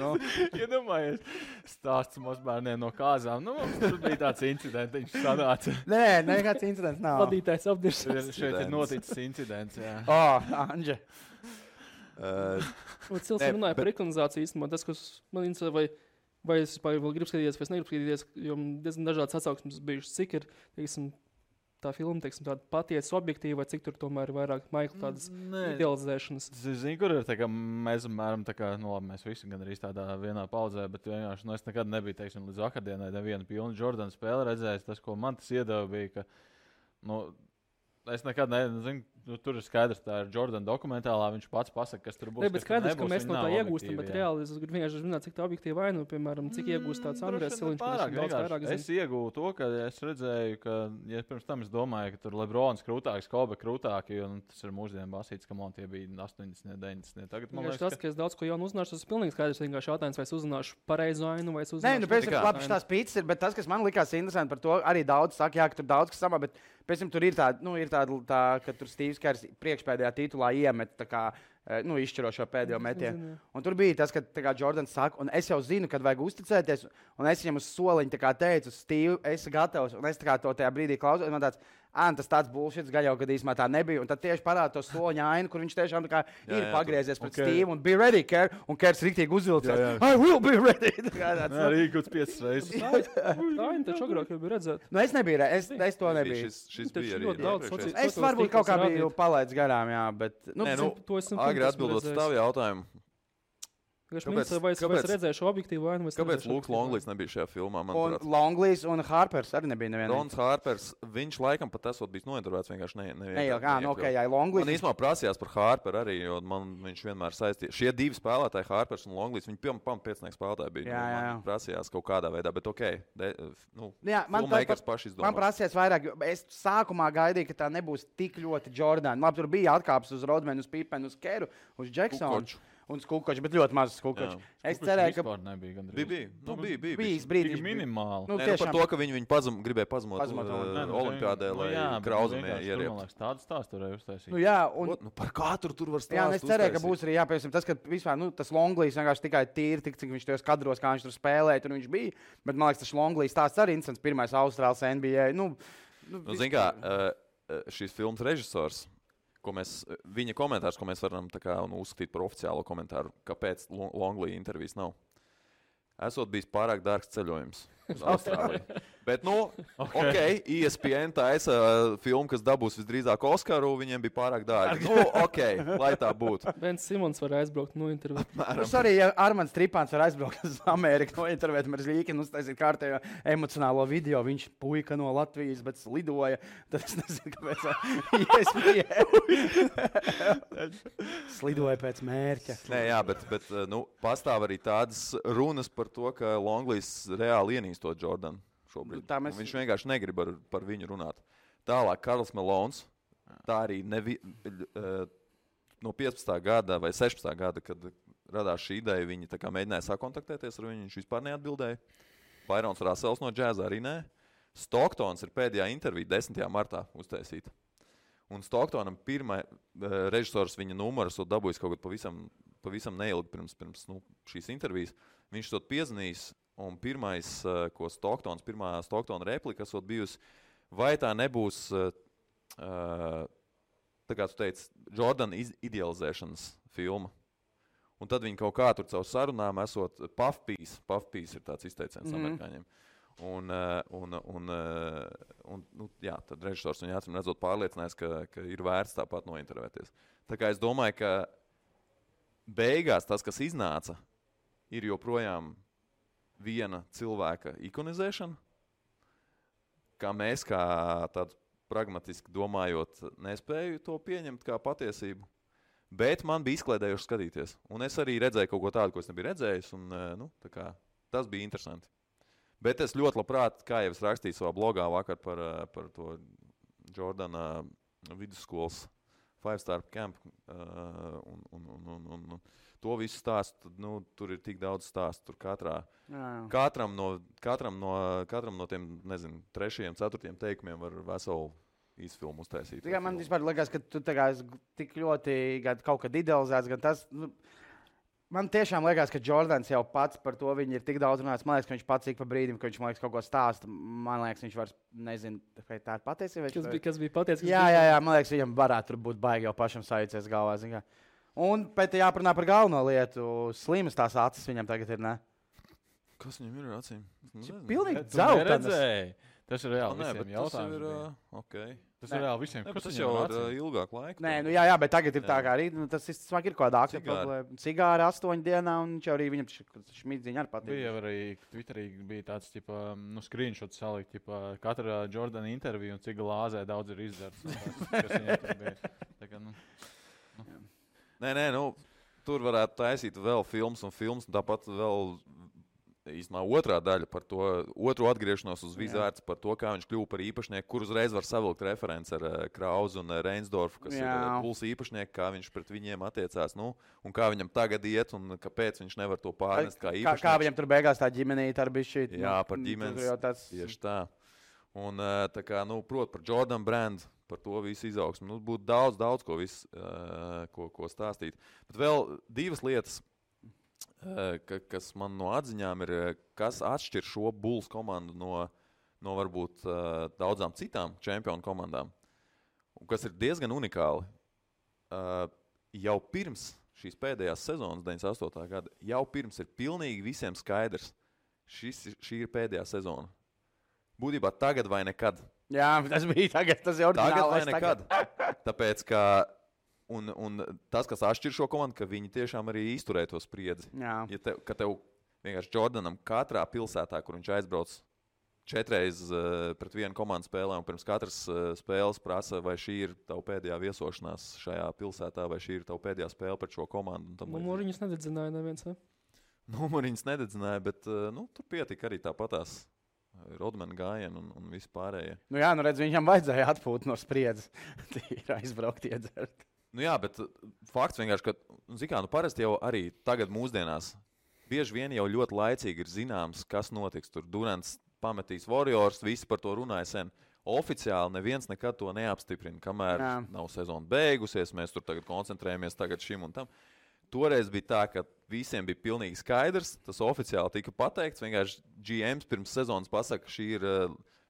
Iedomājies, stāsts mazbērniem no kāzām. Tur bija tāds incidents, viņš sanāca. Nē, nekāds incidents nav. Vadītājs apdirs. Šeit ir noticis incidents, jā. Anģe. Cilvēks runāja par ekonizāciju īstenībā. Tas, kas man interesē, vai es vēl gribu skatīties, vai es negribu skatīties, jo diezgan dažādas atsauksmes bijušas, cik ir, teiksim, tā filma, teiksim, tāda patiesa objektīva, vai cik tur tomēr ir vairāk Maikla tādas idealizēšanas. Zini, kur ir tā kā mēs, apmēram, tā kā, mēs visi gan arī tādā vienā paudzē, bet vienkārši, es nekad nebiju, teiksim, līdz vakardienai nevienu pilnu Jordana spēli redzējis. Tas, ko man tas iedeva, bija, ka, es nekad nezinu, tur ir skaidrs, tā ir Jordana dokumentālā. Viņš pats pasaka, kas tur būs. Bet skaidrs, ka mēs no tā iegūstam, bet reāli es gribu vienkārši zināt, cik tā objektīvi vainu, piemēram, cik iegūst tāds Andrēs Siliņš. Es iegūstu to, ka es redzēju, ka, ja pirms tam es domāju, ka tur Lebrons krūtāks, Kobe krūtāki, un tas ir mūsdienu basīts, ka man tie bija 80, 90. Tagad man liekas, ka es daudz ko jaunu uzzināšu, tas ir pilnīgi skaidrs, vienkārši jautājums, vai es uzzināšu pareizu ainu, vai es uzzināšu. Nē, nu, pēc tam labi tās pīcis ir, bet tas, kas man likās interesanti par to, arī daudz saka, jā, ka tur daudz kas samā, bet pēc tam tur ir tāda, ka tur Stīvs Kers priekšpēdējā titulā iemet tā kā, izšķirošo pēdējo metienu. Un tur bija tas, ka Jordans saka, un es jau zinu, kad vajag uzticēties, un es viņam uz soliņu teicu, Stīv, esi gatavs, un es to tajā brīdī klausos, un man tas tāds bullshits, gaļau, kad īsumā tā nebija, un tad tieši parāda to soliņa ainu, kur viņš tiešām ir pagriezies pret Stīvu, un be ready, Ker, un Kers riktīgi uzvilcās. I will be ready! Arī kaut 5 reizes. Tā ir taču agrāk jau bija redzēt. Nu, es nebiju, es to nebiju. Šis bija arī daudz. Es varbūt kaut kā biju palaidis garām, jā, bet... Agri atbildot uz tavu jautājumu. Vai es redzēju šo objektīvu vainu? Kāpēc Lūks Longlīs nebija šajā filmā? Un Longlīs un Harpers arī nebija nevienā. Rons Harpers, viņš laikam pat esot bijis nointervēts vienkārši jā, Longlīs. Man īstenībā prasījās par Harperu arī, jo viņš vienmēr saistīja. Šie divi spēlētāji, Harpers un Longlīs, viņi pēcnieks spēlētāji bija. Man prasījās kaut kādā veidā, bet filmmakers paši izdomās. Man prasījās vairāk, es sākumā gaidīju, ka tā nebūs tik ļoti Jordan. Labi, tur bija atkāpes uz Rodmanu, uz Pipenu, uz Keru, uz Jacksonu. Un Skukočs, bet ļoti mazs Skukočs. Es cerēju, ka nebija. Bija brīdis minimāli. Par to, ka viņi gribēja pazemot olimpiādē, lai Krauzemē ierieptu. Tādu stāstu varēja uztaisīt. Par katru tur var stāstīt. Jā, es cerēju, ka būs arī jāpiemēram tas, ka vispār tas Longlīs vienkārši tikai tīri, cik viņš tajos kadros, kā viņš tur spēlēja, tur viņš bija. Bet man liekas, tas Longlīs stāsts arī interesants. Pirmais Austrāls NBA. Zin kā, šīs filmas režisors. Viņa komentārs, ko mēs varam uzskatīt par oficiālo komentāru, kāpēc Longlī intervijas nav. Esot bijis pārāk dārgs ceļojums uz Austrāliju. Bet, ESPN taisa filmu, kas dabūs visdrīzāk Oskaru, viņiem bija pārāk dārgi. Lai tā būtu. Bens Simons var aizbraukt no intervēt. Arī, ja Armands Tripāns var aizbraukt uz Ameriku no intervēt, mēs Līkinu uztaisīt kārtējo emocionālo video, viņš puika no Latvijas, bet slidoja. Tad es nezinu, kāpēc ESPN slidoja pēc mērķa. Nē, jā, bet pastāv arī tādas runas par to, ka Longlīs reāli ienīstot Jordanu. Viņš vienkārši negrib par viņu runāt. Tālāk, Karls Melons, tā arī no 15. gada vai 16. gada, kad radās šī ideja, viņi mēģināja sakontaktēties ar viņu, viņš vispār neatbildēja. Byrons Russells no džēza arī nē. Stocktons ir pēdējā intervija 10. martā uztaisīta. Un Stocktonam pirmā režisors viņa numuru esot dabūjis kaut kad pavisam neilgi pirms šīs intervijas. Viņš to piezinīs. Un pirmā Stocktona replika esot bijusi, vai tā nebūs, tā kā tu teici, Jordan idealizēšanas filma. Un tad viņi kaut kā tur caur sarunām esot puff piece ir tāds izteiciens amerikāņiem. Tad režisors viņu acīm redzot pārliecinājis, ka ir vērts tāpat nointervēties. Tā kā es domāju, ka beigās tas, kas iznāca, ir joprojām viena cilvēka ikonizēšana, kā mēs, kā tāds pragmatiski domājot, nespēju to pieņemt kā patiesību. Bet man bija izklaidējoši skatīties. Un es arī redzēju kaut ko tādu, ko es nebiju redzējis. Un, tas bija interesanti. Bet es ļoti labprāt, kā jau es rakstīju savā blogā vakar par to Jordana vidusskolas 5-star camp un to visu stāstu, tur ir tik daudz stāstu. Tur katram no tiem, nezinu, 3, 4 teikumiem var veselu īsfilmu uztaisīt. Man vispār liekas, ka tu tik ļoti kaut kad idealizēts, gan tas... Man tiešām liekas, ka Jordans jau pats par to ir tik daudz runājis. Man liekas, ka viņš pats ik pa brīdim, ka viņš kaut ko stāsta. Man liekas, viņš vairs nezinu, vai tā ir patiesība. Kas bija patiesība? Jā, man liekas, viņam varētu būt baigi jau pašam sajūties galvā. Un pēc tam jāparunā par galveno lietu. Slimas tās acis viņam tagad ir, ne? Kas viņam ir ar acīm? Pilnīgi dzeltenas. Tas ir reāli visiem jautājums. Okay. Tas ir reāli visiem. Tas jau ir ilgāk laika. Nē, jā, bet tagad ir tā kā arī, tas ir kaut kāda akta problēma. Cigāri 8 dienā, un viņš arī viņam šmīdziņa ar patīk. Bija arī Twitterī bija tāds, screenshot salikt, katra Jordana intervija un cik glāzē daudz ir izdarts. Nē, tur varētu taisīt vēl filmas, un tāpat vēl īstenībā otrā daļa par to otru atgriešanos uz Vizārds, par to, kā viņš kļuva par īpašnieku, kur uzreiz var savilkt referents ar Krauzu un Reinsdorfu, kas ir Bulls īpašnieki, kā viņš pret viņiem attiecās, un kā viņam tagad iet, un kāpēc viņš nevar to pārnest kā īpašnieks. Kā viņam tur beigās tā ģimenīte ar bišķi. Jā, par ģimenes, tieši tā. Un tā kā, prot par Jordan Brand, par to visu izaugsmu. Būtu daudz ko stāstīt. Bet vēl divas lietas, kas man no atziņām ir, kas atšķir šo Bulls komandu no varbūt daudzām citām čempionu komandām, un kas ir diezgan unikāli. Jau pirms šīs pēdējās sezonas, 98. gada, jau pirms ir pilnīgi visiem skaidrs, šī ir pēdējā sezona. Būtībā tagad vai nekad. Jā, tas bija tagad, tas ir oriģinālais. Tagad vai nekad. Tāpēc, ka Un tas, kas atšķir šo komandu, ka viņi tiešām arī izturēja to spriedzi. Ja tev vienkārši Jordanam katrā pilsētā, kur viņš aizbrauc 4 reizes pret vienu komandu spēlē, un pirms katras spēles prasa, vai šī ir tava pēdējā viesošanās šajā pilsētā, vai šī ir tava pēdējā spēle pret šo komandu. Numuriņus nededzināja neviens, ne? Numuriņus nededzināja, bet tur pietika arī tāpatās. Rodmana gājienu un viss pārējie. Redz, viņam vajadzēja atpūt no spriedzes. Tīri aizbraukt iedzert. Jā, bet fakts vienkārši, ka, parasti jau arī tagad mūsdienās bieži vien jau ļoti laicīgi ir zināms, kas notiks. Tur Durants pametīs Warriors, visi par to runāja sen. Oficiāli neviens nekad to neapstiprina, kamēr nav sezona beigusies, mēs tur tagad koncentrējamies tagad šim un tam. Toreiz bija tā, ka visiem bija pilnīgi skaidrs, tas oficiāli tika pateikts, vienkārši GMs pirms sezonas pasaka, ka šī ir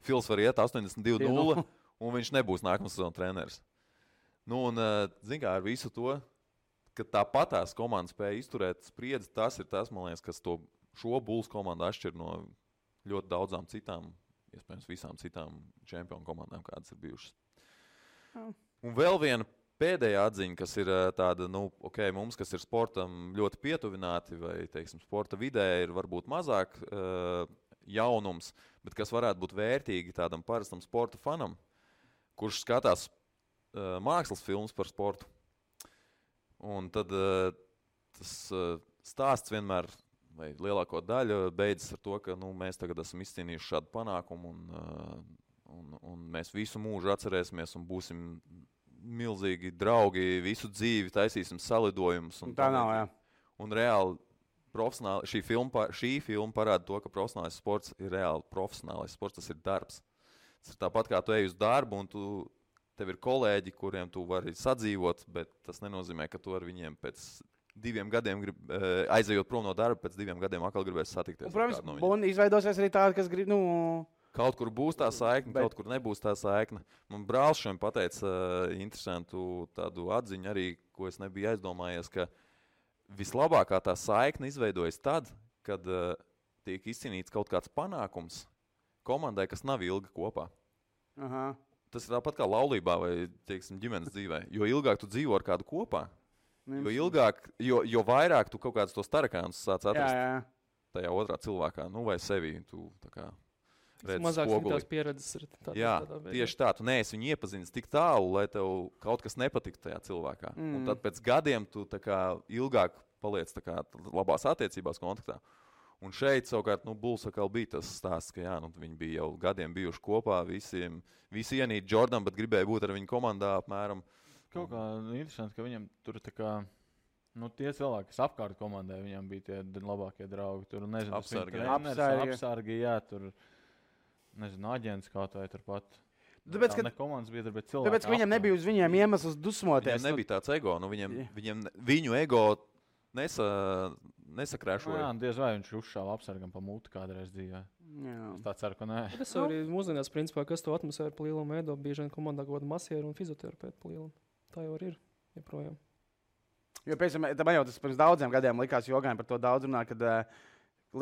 Fils var iet 82-0, un viņš nebūs nākamā sezona treneris. Zin kā, ar visu to, ka tāpatās komanda spēja izturēt spriedzi, tas ir tas, man liekas, kas šo Bulls komandu atšķir no ļoti daudzām citām, iespējams visām citām čempionu komandām, kādas ir bijušas. Un vēl viena pēdējā atziņa, kas ir tāda, mums, kas ir sportam ļoti pietuvināti, vai, teiksim, sporta vidē ir varbūt mazāk jaunums, bet kas varētu būt vērtīgi tādam parastam sporta fanam, kurš skatās mākslas filmas par sportu. Un tad tas stāsts vienmēr, vai lielāko daļu, beidzas ar to, ka mēs tagad esam izcīnījuši šādu panākumu un mēs visu mūžu atcerēsimies un būsim milzīgi draugi, visu dzīvi taisīsim salidojumus. Tā nav, jā. Un reāli šī filma parāda to, ka profesionālais sports ir reāli profesionālais sports, tas ir darbs. Tas ir tāpat kā tu ej uz darbu un tev ir kolēģi, kuriem tu vari sadzīvot, bet tas nenozīmē, ka tu ar viņiem pēc 2 gadiem aizejot prom no darba, pēc 2 gadiem atkal gribēs satikties. Un, protams, un izveidosies arī tādi, kas grib, Kaut kur būs tā saikne, kaut kur nebūs tā saikne. Man brālis šodien pateica interesantu tādu atziņu arī, ko es nebiju aizdomājies, ka vislabākā tā saikne izveidojas tad, kad tiek izcīnīts kaut kāds panākums komandai, kas nav ilgi kopā. Aha. Tas ir tāpat kā laulībā vai, teiksim, ģimenes dzīvē. Jo ilgāk tu dzīvo ar kādu kopā, jo vairāk tu kaut kādus tos tarakānus sāc atrast tajā otrā cilvēkā, vai sevī. Tu tā kā redz spoguli. Tās pieredzes ir tādā tieši tā. Tu neesi viņu iepazinis tik tālu, lai tev kaut kas nepatiktu tajā cilvēkā. Un tad pēc gadiem tu tā kā ilgāk paliec tā kā labās attiecībās kontaktā. Un šeit savukārt Bulls atkal bija tas stāsts, ka viņi bija jau gadiem bijuši kopā, visi ienīt Jordan, bet gribēja būt ar viņu komandā apmēram. Kaut kā interesanti, ka viņam tur tā kā, tie cilvēki, kas apkārt komandai, viņam bija tie labākie draugi. Tur, nezinu, apsargi, jā, tur, nezinu, aģents kaut vai turpat. Tāpēc, ne komandas biedri, bet cilvēki. Tāpēc, ka viņam nebija uz viņiem iemesls dusmoties. Viņam nebija tāds ego, viņu ego nesakrēšoja. Jā, diez vai viņš uzšāva apsargam pa muti kādreiz dzīvē. Es tā ceru, ka nē. Tas arī mūsdienās, principā, kas to atmosfēru pa lielam veido, bieži vien komandā kaut kāda masieru un fizioterapeitu pa lielam. Tā jau ir, joprojām. Jo, piemēram, man jau tas pirms daudziem gadiem likās jogājiem par to daudz runāt, kad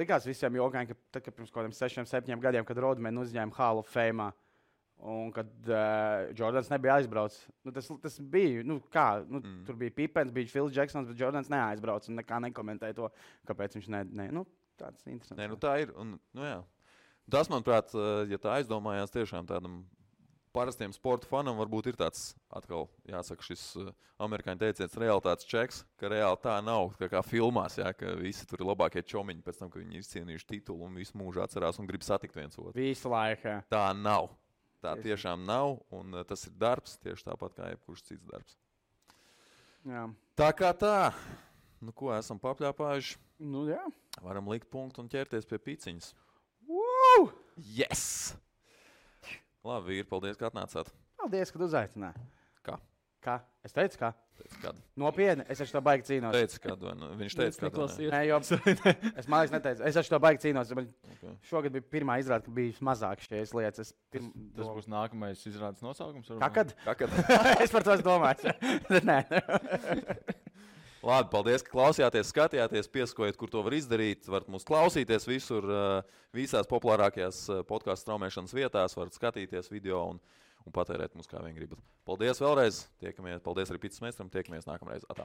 likās visiem jogājiem, ka pirms kaut kādiem 6-7 gadiem, kad Rodmani uzņēma Hall of Fame, Un kad Jordans nebija aizbraucis, tas bija, tur bija Pipens, bija Phils Jacksons, bet Jordans neaizbrauca un nekā nekomentēja to, kāpēc viņš tāds interesants. Tā ir. Un, jā. Tas, manuprāt, ja tā aizdomājās tiešām tādam parastiem sporta fanam, varbūt ir tāds atkal, jāsaka, šis amerikāņu teiciens realitātes čeks, ka reāli tā nav, kā filmās, jā, ka visi tur ir labākie čomiņi pēc tam, ka viņi ir izcīnījuši titulu un visu mūžu atcerās un grib satikt viens otru. Visu laiku. Tā nav. Tā tiešām nav, un tas ir darbs, tieši tāpat kā jebkurš cits darbs. Jā. Tā kā tā. Ko esam papļāpājuši? Jā. Varam likt punktu un ķerties pie piciņas. Woo! Yes! Labi, vīri, paldies, ka atnācāt. Paldies, ka uzaicināji. Kā? Es teicu, kā? Kad? Nopietni, es ar to baigi cīnos. Viņš teica, ka es mākslinieks neteicu. Es ar to baigi cīnos. Okay. Šogad bija pirmā izrāde, ka bija mazāk šīs lietas. Tas būs nākamais izrādes nosaukums? Kad? Es par to domāju. Nē. Labi, paldies, ka klausījāties, skatījāties, piesakojiet, kur to var izdarīt. Varat mūs klausīties visur, visās populārākajās podkāstu straumēšanas vietās, varat skatīties video un patērēt mūs kā vien gribat. Paldies vēlreiz, tiekamies, paldies arī Pits Meistram, tiekamies nākamreiz. Atā.